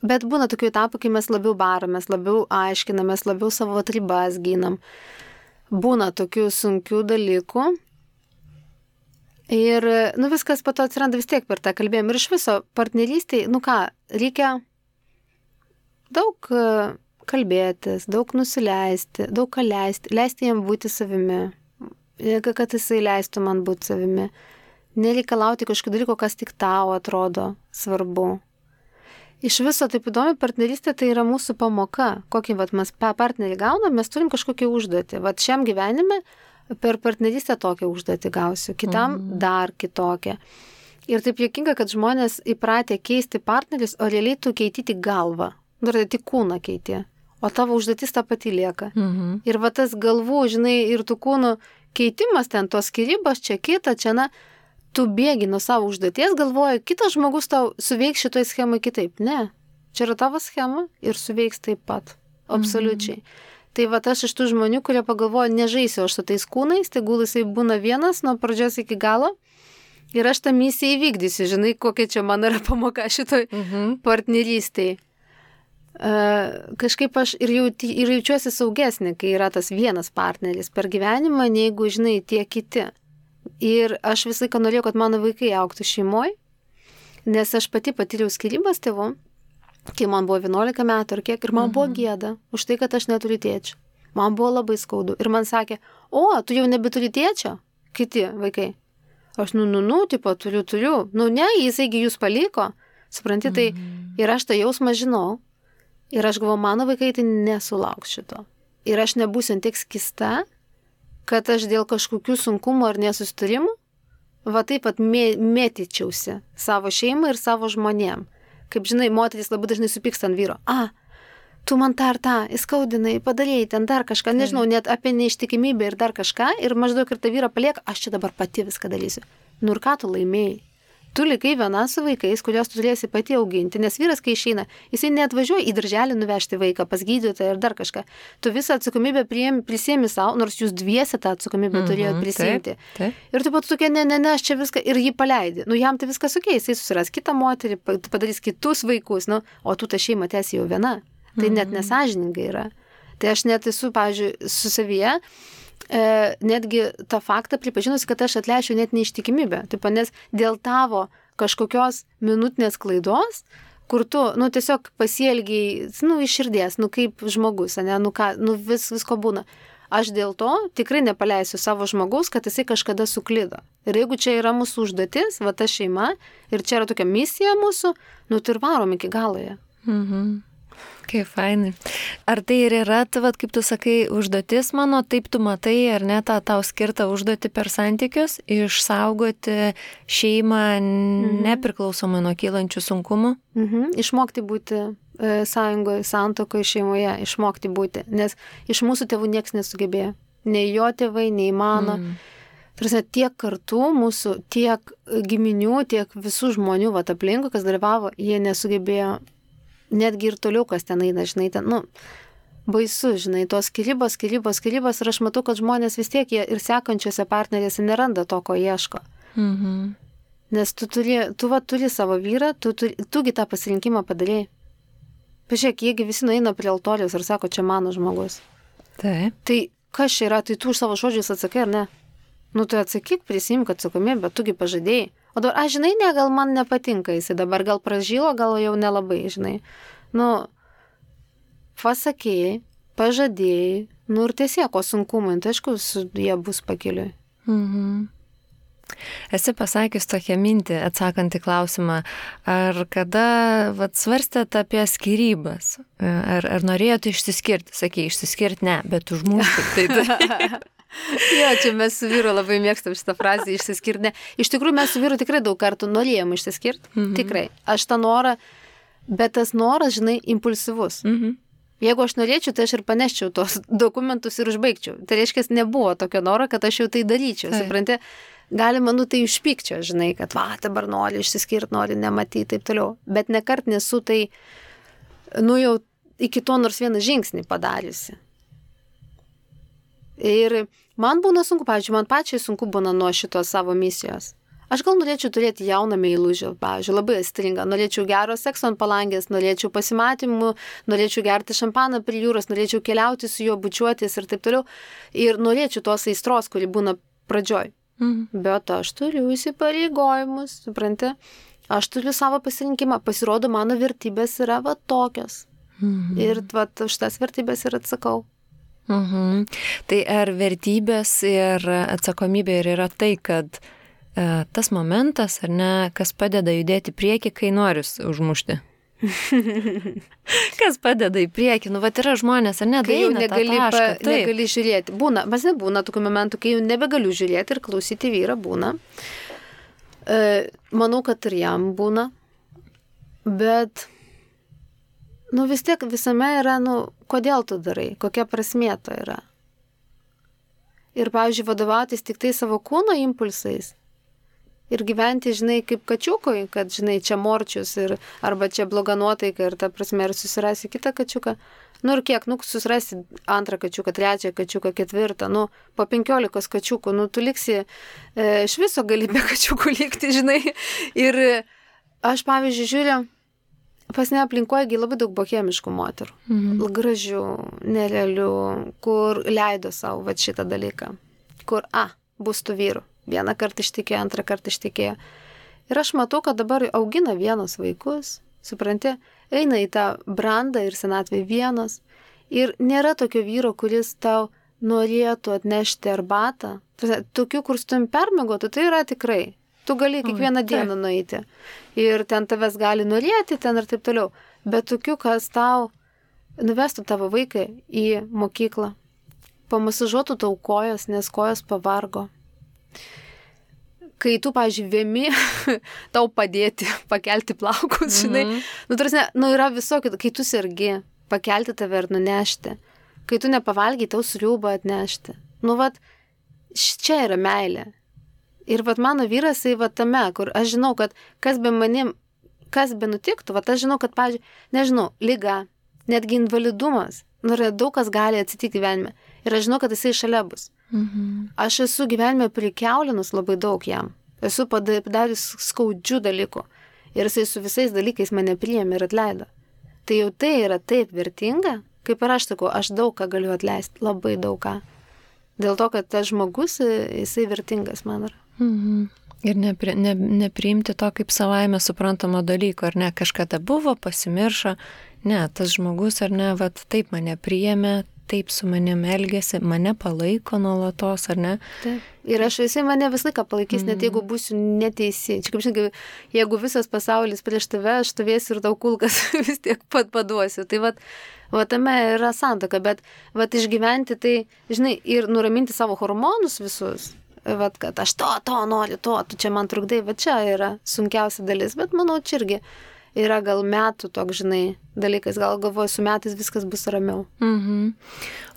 bet būna tokių etapų, kai mes labiau baramės, labiau aiškinamės, labiau savo ribas ginam. Būna tokių sunkių dalykų. Ir, viskas po to atsiranda vis tiek per tą kalbėjimą. Ir iš viso partnerystėj, reikia daug kalbėtis, daug nusileisti, daug ką leisti, leisti jam būti savimi, kad jisai leistų man būti savimi, nereikalauti kažkokio dalyko, kas tik tau atrodo svarbu. Iš viso taip įdomi, partnerystė tai yra mūsų pamoka. Kokį mes partnerį gaunam, mes turim kažkokią užduotį. Vat šiam gyvenime per partnerystę tokią užduotį gausiu, kitam dar kitokią. Ir taip juokinga, kad žmonės įpratę keisti partnerius, o realiai tu keiti tik galvą. Dar tik kūną keiti. O tavo užduotis ta pati lieka. Ir va tas galvų, žinai, ir tų kūnų keitimas ten, tos skirybos, čia kita, čia na. Tu bėgi nuo savo užduoties, galvoji, kitas žmogus tau suveiks šitoj schemai kitaip. Ne, čia yra tavo schema ir suveiks taip pat. Absoliučiai. Tai va aš iš tų žmonių, kurie pagalvoja, nežaisiu aš su tais kūnais, tegul jisai būna vienas nuo pradžios iki galo ir aš tą misiją įvykdysiu. Žinai, kokia čia man yra pamoka šitoj partnerystėj. Kažkaip aš ir jaučiuosi saugesnė, kai yra tas vienas partneris per gyvenimą, neigu, žinai, tie kiti. Ir aš visą laiką norėjau, kad mano vaikai augtų šeimoje, nes aš pati patyriau skyrybas tėvų, kai man buvo 11 metų ar kiek, ir man buvo gėda už tai, kad aš neturiu tėčio. Man buvo labai skaudu. Ir man sakė, o, tu jau nebeturi tėčio? Kiti vaikai. Aš, tipo, turiu. Ne, jisaigi jūs paliko. Supranti, tai ir aš tą jausmą žinau. Ir aš galvoju, mano vaikai tai nesulauks šito. Ir aš nebūsiu tiek skista, kad aš dėl kažkokių sunkumų ar nesustarimų, va taip pat mėtyčiausi savo šeimą ir savo žmonėm. Kaip žinai, moteris labai dažnai supyksta ant vyro. Tu man tą ir tą, įskaudinai, padarėjai ten dar kažką, nežinau, net apie neištikimybę ir dar kažką, ir maždaug ir tą vyrą palieka, aš čia dabar pati viską dalysiu. Ir ką tu laimėjai? Tu likai viena su vaikais, kuriuos tu turėsi pati auginti, nes vyras, kai išeina, jisai neatvažiuoja į darželį nuvežti vaiką pas gydytoją ir dar kažką. Tu visą atsakomybę prisiemi savo, nors jūs dviese tą atsakomybę turėjot prisiimti. Taip. Ir tu pat tokia, ne, aš čia viską, ir jį paleidi. Jam tai viskas okei, jisai susiras kitą moterį, padarys kitus vaikus, o tu tą šeimą tęsi jau viena. Tai net nesažiningai yra. Tai aš net esu, pavyzdžiui, su savyje, netgi tą faktą pripažinusi, kad aš atleišiu net neištikimybę. Taip, nes dėl tavo kažkokios minutinės klaidos, kur tu, tiesiog pasielgiai, iš širdies, kaip žmogus, ne, visko būna. Aš dėl to tikrai nepaleisiu savo žmogaus, kad jisai kažkada suklydo. Ir jeigu čia yra mūsų užduotis, va ta šeima, ir čia yra tokia misija mūsų, tai ir varom iki galoje. Kaip fainai. Ar tai ir yra, kaip tu sakai, užduotis mano, taip tu matai, ar ne, tą tau skirtą užduotį per santykius, išsaugoti šeimą nepriklausomai nuo kylančių sunkumų? Išmokti būti sąjungoje, santuokoje, šeimoje, išmokti būti, nes iš mūsų tėvų nieks nesugebėjo. Nei jo tėvai, nei mano. Tiek kartų mūsų, tiek giminių, tiek visų žmonių aplinkui, kas dalyvavo, jie nesugebėjo. Netgi ir toliau, kas ten eina, žinai, ten, baisu, žinai, tos skyrybos, ir aš matau, kad žmonės vis tiek jie ir sekančiose partnerėse neranda to, ko ieško. Nes tu turi savo vyrą, tugi tą pasirinkimą padarėjai. Pažiūrėk, jiegi visi nueina prie altoriaus ir sako, čia mano žmogus. Taip. Tai kas čia yra, tai tu už savo žodžius atsakai, ar ne? Tai atsakyk, prisimk atsakomybę, bet tugi pažadėjai. O dabar, žinai, ne, gal man nepatinka jisai dabar, gal pražylo, gal jau nelabai, žinai. Pasakėjai, pažadėjai, ir tiesiog, o sunkumai, tai aišku, jie bus pakeliui. Esi pasakęs tokią mintį, atsakant į klausimą, ar kada svarstėt apie skyrybas, ar norėjote išsiskirti, sakei, išsiskirti ne, bet užmušti. Jo, čia mes su vyru labai mėgstam šitą frazę išsiskirti. Ne. Iš tikrųjų, mes su vyru tikrai daug kartų norėjom išsiskirti. Tikrai. Aš tą norą, bet tas noras, žinai, impulsyvus. Jeigu aš norėčiau, tai aš ir paneščiau tos dokumentus ir užbaigčiau. Tai reiškia, nebuvo tokio noro, kad aš jau tai daryčiau. Supranti, galima, tai užpykčio, žinai, kad dabar nori išsiskirti, nori nematyti, taip toliau. Bet nekart nesu tai, jau iki to nors vieną žingsnį padariusi. Ir man būna sunku, pavyzdžiui, man pačiai sunku būna nuo šitos savo misijos. Aš gal norėčiau turėti jauną meilužį, pavyzdžiui, labai aistringą. Norėčiau gero sekso ant palangės, norėčiau pasimatymų, norėčiau gerti šampaną prie jūros, norėčiau keliauti su juo, bučiuotis ir taip toliau. Ir norėčiau tos aistros, kuri būna pradžioj. Bet aš turiu įsipareigojimus, supranti? Aš turiu savo pasirinkimą. Pasirodo, mano vertybės yra tokios. Ir už tas vertybės ir atsakau. Tai ar vertybės ir atsakomybė ir yra tai, kad tas momentas, ar ne, kas padeda judėti prieki, kai noris užmušti? Kas padeda į priekį? Nu, vat yra žmonės, ar ne? Kai jau negali žiūrėti. Būna, mas nebūna tokių momentų, kai jau nebegaliu žiūrėti ir klausyti vyrą, būna. Manau, kad ir jam būna. Bet, nu vis tiek visame yra, nu, kodėl tu darai, kokia prasmė to yra. Ir, pavyzdžiui, vadovautis tik tai savo kūno impulsais. Ir gyventi, žinai, kaip kačiukui, kad, žinai, čia morčius ir arba čia bloga nuotaika ir ta prasme, ir susirasi kitą kačiuką. Nu ir kiek, nu, susirasi antrą kačiuką, trečią kačiuką, ketvirtą, nu, po 15 kačiukų, nu, tu liksi, iš viso gali be kačiukų likti, žinai. Ir aš, pavyzdžiui, žiūriu, pas ne aplinkoje labai daug bohemiškų moterų. Gražių, nerealių, kur leido savo va šitą dalyką. Kur, bus tų vyrų. Vieną kartą ištikėjo, antrą kartą ištikėjo. Ir aš matau, kad dabar augina vienos vaikus, supranti, eina į tą brandą ir senatvę vienos. Ir nėra tokio vyro, kuris tau norėtų atnešti arbatą. Tokių, kur su tavim permiegotų, tai yra tikrai. Tu gali kiekvieną dieną nueiti. Ir ten tavęs gali norėti, ten ir taip toliau. Bet tokių, kas tau nuvestų tavo vaiką į mokyklą. Pamasažuotų tau kojas, nes kojas pavargo. Kai tu, pavyzdžiui, vėmi, tau padėti, pakelti plaukus, žinai. Nu, tarsi, yra visokių, kai tu sergi, pakelti tave ir nunešti. Kai tu nepavalgiai, tau sriubą atnešti. Nu, vat, čia yra meilė. Ir vat mano vyras, tai vat tame, kur aš žinau, kad kas be manim, kas be nutiktų, vat aš žinau, kad, pavyzdžiui, nežinau, liga, netgi invalidumas, nu, daug kas gali atsitikti gyvenime. Ir aš žinau, kad jisai šalia bus. Aš esu gyvenime prikiaulinus labai daug jam. Esu padarius skaudžių dalykų. Ir jisai su visais dalykais mane priėmė ir atleido. Tai jau tai yra taip vertinga, kaip ir aš sakau, aš daug ką galiu atleisti, labai daug ką. Dėl to, kad tas žmogus, jisai vertingas man yra. Ir nepriimti to kaip savaime suprantamo dalyko, ar ne, kažkada buvo, pasimiršo, ne, tas žmogus, ar ne, vat taip mane priėmė, taip su manim elgėsi, mane palaiko nuolatos, ar ne? Taip. Ir jisai mane visą laiką palaikys, net jeigu būsiu neteisi. Čia kaip žinai, jeigu visas pasaulis prieš tave, aš stovėsiu ir tau kulkas vis tiek paduosiu. Tai vat tame yra santaka, bet vat išgyventi tai, žinai, ir nuraminti savo hormonus visus. Vat, kad aš to noriu, tu čia man trukdai, va čia yra sunkiausia dalis, bet manau, čia irgi yra gal metų toks, žinai, dalykas, gal galvoju, su metais viskas bus ramiau.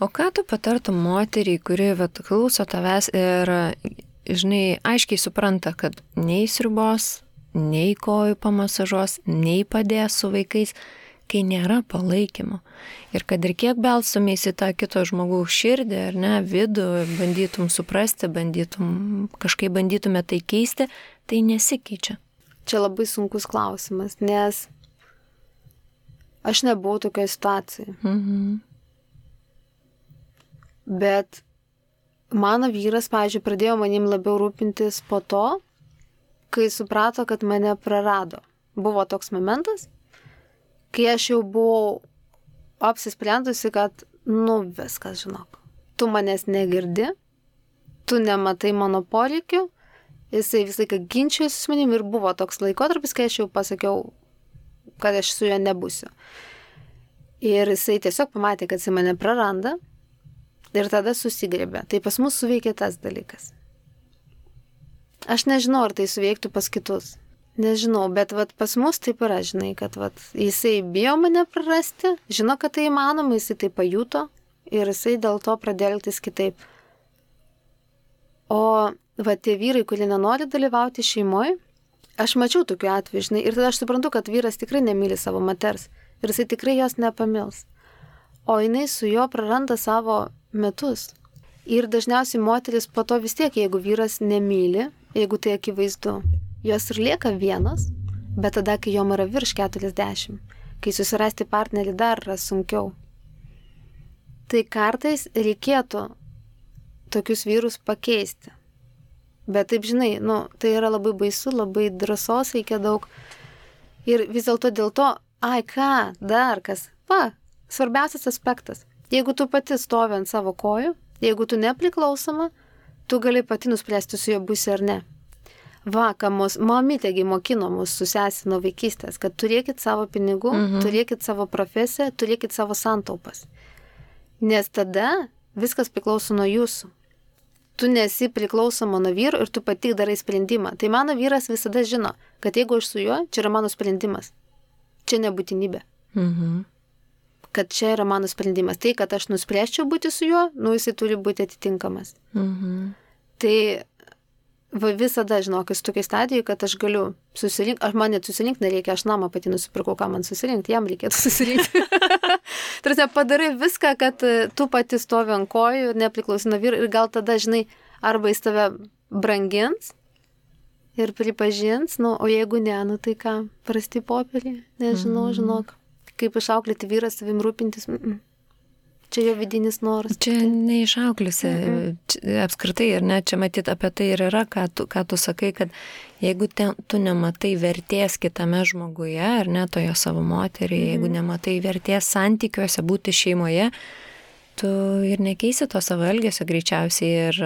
O ką tu patartum moteriai, kuri vat, klauso tavęs ir, žinai, aiškiai supranta, kad nei sriubos, nei kojų pamasažuos, nei padės su vaikais, kai nėra palaikymo. Ir kad ir kiek belstumės į tą kito žmogaus širdį, ar ne, vidų, bandytum suprasti, kažkaip bandytume tai keisti, tai nesikeičia. Čia labai sunkus klausimas, nes aš nebuvau tokioje situacijoje. Bet mano vyras, pavyzdžiui, pradėjo manim labiau rūpintis po to, kai suprato, kad mane prarado. Buvo toks momentas, kai aš jau buvau apsisprendusi, kad, nu, viskas, žinok, tu manęs negirdi, tu nematai mano poreikių, jisai visą laiką ginčijosi su manim ir buvo toks laikotarpis, kai aš jau pasakiau, kad aš su juo nebūsiu. Ir jisai tiesiog pamatė, kad jisai mane praranda ir tada susigrėbė. Tai pas mus suveikė tas dalykas. Aš nežinau, ar tai suveiktų pas kitus. Nežinau, bet vat, pas mus taip yra, žinai, kad vat, jisai bijo mane prarasti, žino, kad tai įmanoma, jisai tai pajuto ir jisai dėl to pradėjo elgtis kitaip. O va, tie vyrai, kurie nenori dalyvauti šeimoje, aš mačiau tokių atvejų, žinai, ir tada aš suprantu, kad vyras tikrai nemyli savo moters ir jisai tikrai jos nepamils. O jinai su juo praranda savo metus. Ir dažniausiai moteris po to vis tiek, jeigu vyras nemyli, jeigu tai akivaizdu, jos ir lieka vienas, bet tada, kai jom yra virš 40, kai susirasti partnerį dar yra sunkiau. Tai kartais reikėtų tokius vyrus pakeisti. Bet taip, žinai, nu, tai yra labai baisu, labai drąsos reikia daug. Ir vis dėlto dėl to, dar kas, svarbiausias aspektas. Jeigu tu pati stovi ant savo kojų, jeigu tu nepriklausoma, tu gali pati nuspręsti su juo būsi ar ne. ką mamytėgi mokino mus su sesė nuo vaikystės, kad turėkit savo pinigų, turėkit savo profesiją, turėkit savo santaupas. Nes tada viskas priklauso nuo jūsų. Tu nesi priklausoma nuo vyro ir tu pati darai sprendimą. Tai mano vyras visada žino, kad jeigu aš su juo, čia yra mano sprendimas. Čia nebūtinybė. Kad čia yra mano sprendimas. Tai, kad aš nuspręsčiau būti su juo, jisai turi būti atitinkamas. Tai visada žinok, esu tokiai stadijai, kad aš galiu susirinkti, man net susirinkti nereikia, aš namą pati nusipirkau, ką man susirinkti, jam reikėtų susirinkti. Tarsi padarai viską, kad tu pati stovi ant kojų ir nepriklausi nuo vyro ir gal tada, žinai, arba jis tave brangins ir pripažins, o jeigu ne, tai ką, prasti popierį, nežinau, žinok, kaip išauklėti vyras savim rūpintis, čia jo vidinis noras. Čia neišauklėsi apskritai ir ne, čia matyt apie tai ir yra, ką tu sakai, kad jeigu tu nematai vertės kitame žmoguje, ar ne toje savo moteriai, jeigu nematai vertės santykiuose, būti šeimoje, tu ir nekeisi to savo elgesio greičiausiai,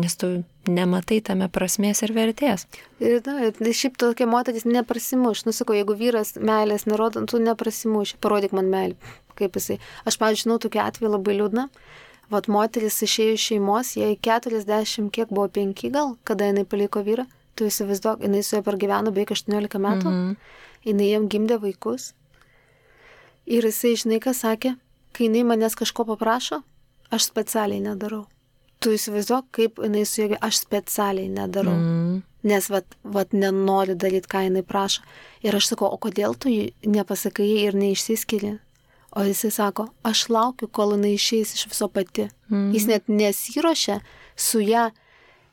nes tu nematai tame prasmės ir vertės. Ir šiaip tokia moteris neprasimuš. Sakau, jeigu vyras meilės nerodo, tu neprasimuš. Parodyk man meilę. Kaip jisai. Aš, pavyzdžiui, žinau tokį atvejį labai liūdną. Vat moteris išėjo iš šeimos, jai 40, kiek buvo 5 gal, kada jinai paliko vyrą. Tu įsivaizduok, jinai su juo pergyveno beveik 18 metų. Jinai jam gimdė vaikus. Ir jisai, žinai, ką sakė, kai jinai manęs kažko paprašo, aš specialiai nedarau. Tu įsivaizduok, kaip jinai su juo, aš specialiai nedarau. Nes vat nenori daryti, ką jinai prašo. Ir aš sakau, o kodėl tu nepasakai ir neišsiskiri? O jisai sako, aš laukiu, kol jinai išeis iš viso pati. Jis net nesiruošia su ją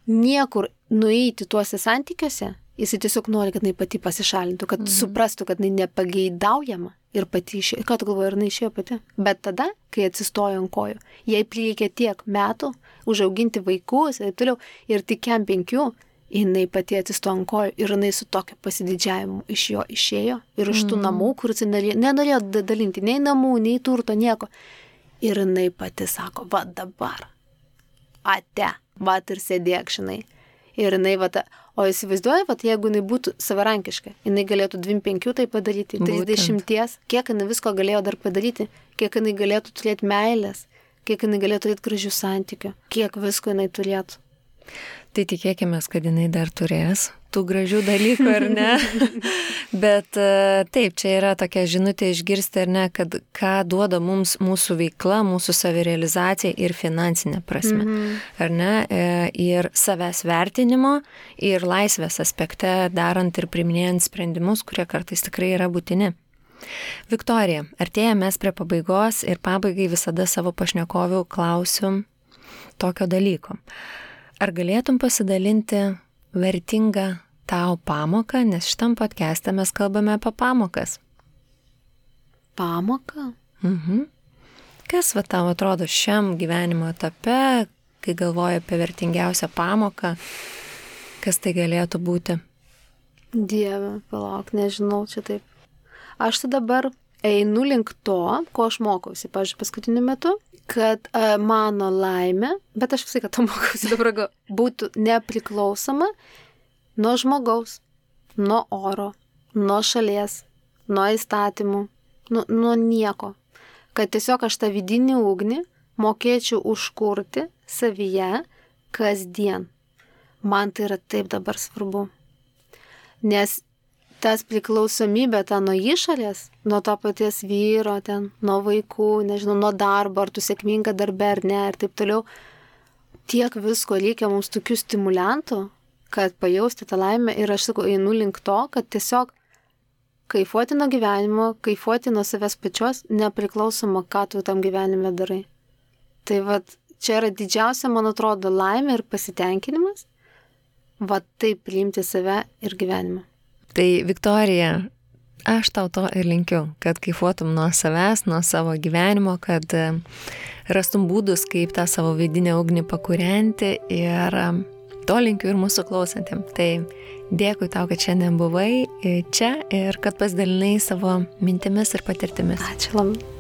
niekur nueiti tuose santykiuose. Jisai tiesiog nori, kad jinai pati pasišalintų, kad suprastų, kad jinai nepageidaujama ir pati išėjo. Ką tu galvoji, ir jinai išėjo pati? Bet tada, kai atsistojo ant kojų, jai prireikė tiek metų užauginti vaikus ir taip toliau, ir tik 5, jinai pati atsistojo ant kojų ir jinai su tokiu pasididžiavimu iš jo išėjo ir iš tų namų, kur jis nenorėjo dalinti nei namų, nei turto, nieko. Ir jinai pati sako, va dabar, ate, va ir sėdėk, žinai. Ir jinai, o įsivaizduoja, jeigu jinai būtų savarankiška, jinai galėtų 25 tai padaryti, 30, kiek jinai visko galėjo dar padaryti, kiek jinai galėtų turėti meilės, kiek jinai galėtų turėti gražių santykių, kiek visko jinai turėtų. Tai tikėkime, kad jinai dar turės tų gražių dalykų, ar ne? Bet taip, čia yra tokia žinutė išgirsti, ar ne, kad ką duoda mums mūsų veikla, mūsų savirealizacija ir finansinė prasme, ar ne? Ir savęs vertinimo, ir laisvės aspekte darant ir priiminėjant sprendimus, kurie kartais tikrai yra būtini. Viktorija, artėjame prie pabaigos ir pabaigai visada savo pašnekovių klausiu tokio dalyko. Ar galėtum pasidalinti vertingą tau pamoką, nes šitam podcast'e mes kalbame apie pamokas. Pamoką? Kas tau atrodo šiam gyvenimo etape, kai galvoji apie vertingiausią pamoką, kas tai galėtų būti? Dieve, palauk, nežinau, čia taip. Aš tai dabar einu link to, ko aš mokausi, pavyzdžiui, paskutiniu metu, kad mano laimė, bet aš visai, kad to mokausi dabar, būtų nepriklausoma nuo žmogaus, nuo oro, nuo šalies, nuo įstatymų, nuo nieko. Kad tiesiog aš tą vidinį ugnį mokėčiau užkurti savyje kasdien. Man tai yra taip dabar svarbu. Nes tas priklausomybė nuo išorės, nuo to paties vyro, nuo vaikų, nežinau, nuo darbo, ar tu sėkminga darbe ar ne, ir taip toliau. Tiek visko reikia mums tokių stimulantų, kad pajausti tą laimę ir aš sakau, einu link to, kad tiesiog kaifuoti nuo gyvenimo, kaifuoti nuo savęs pačios, nepriklausoma, ką tu tam gyvenime darai. Tai čia yra didžiausia, man atrodo, laimė ir pasitenkinimas, taip priimti save ir gyvenimą. Tai Viktorija, aš tau to ir linkiu, kad kaifuotum nuo savęs, nuo savo gyvenimo, kad rastum būdus, kaip tą savo vidinę ugnį pakūrenti ir to linkiu ir mūsų klausantiem. Tai dėkui tau, kad šiandien buvai čia ir kad pasidalinai savo mintimis ir patirtimis. Ačiū labai.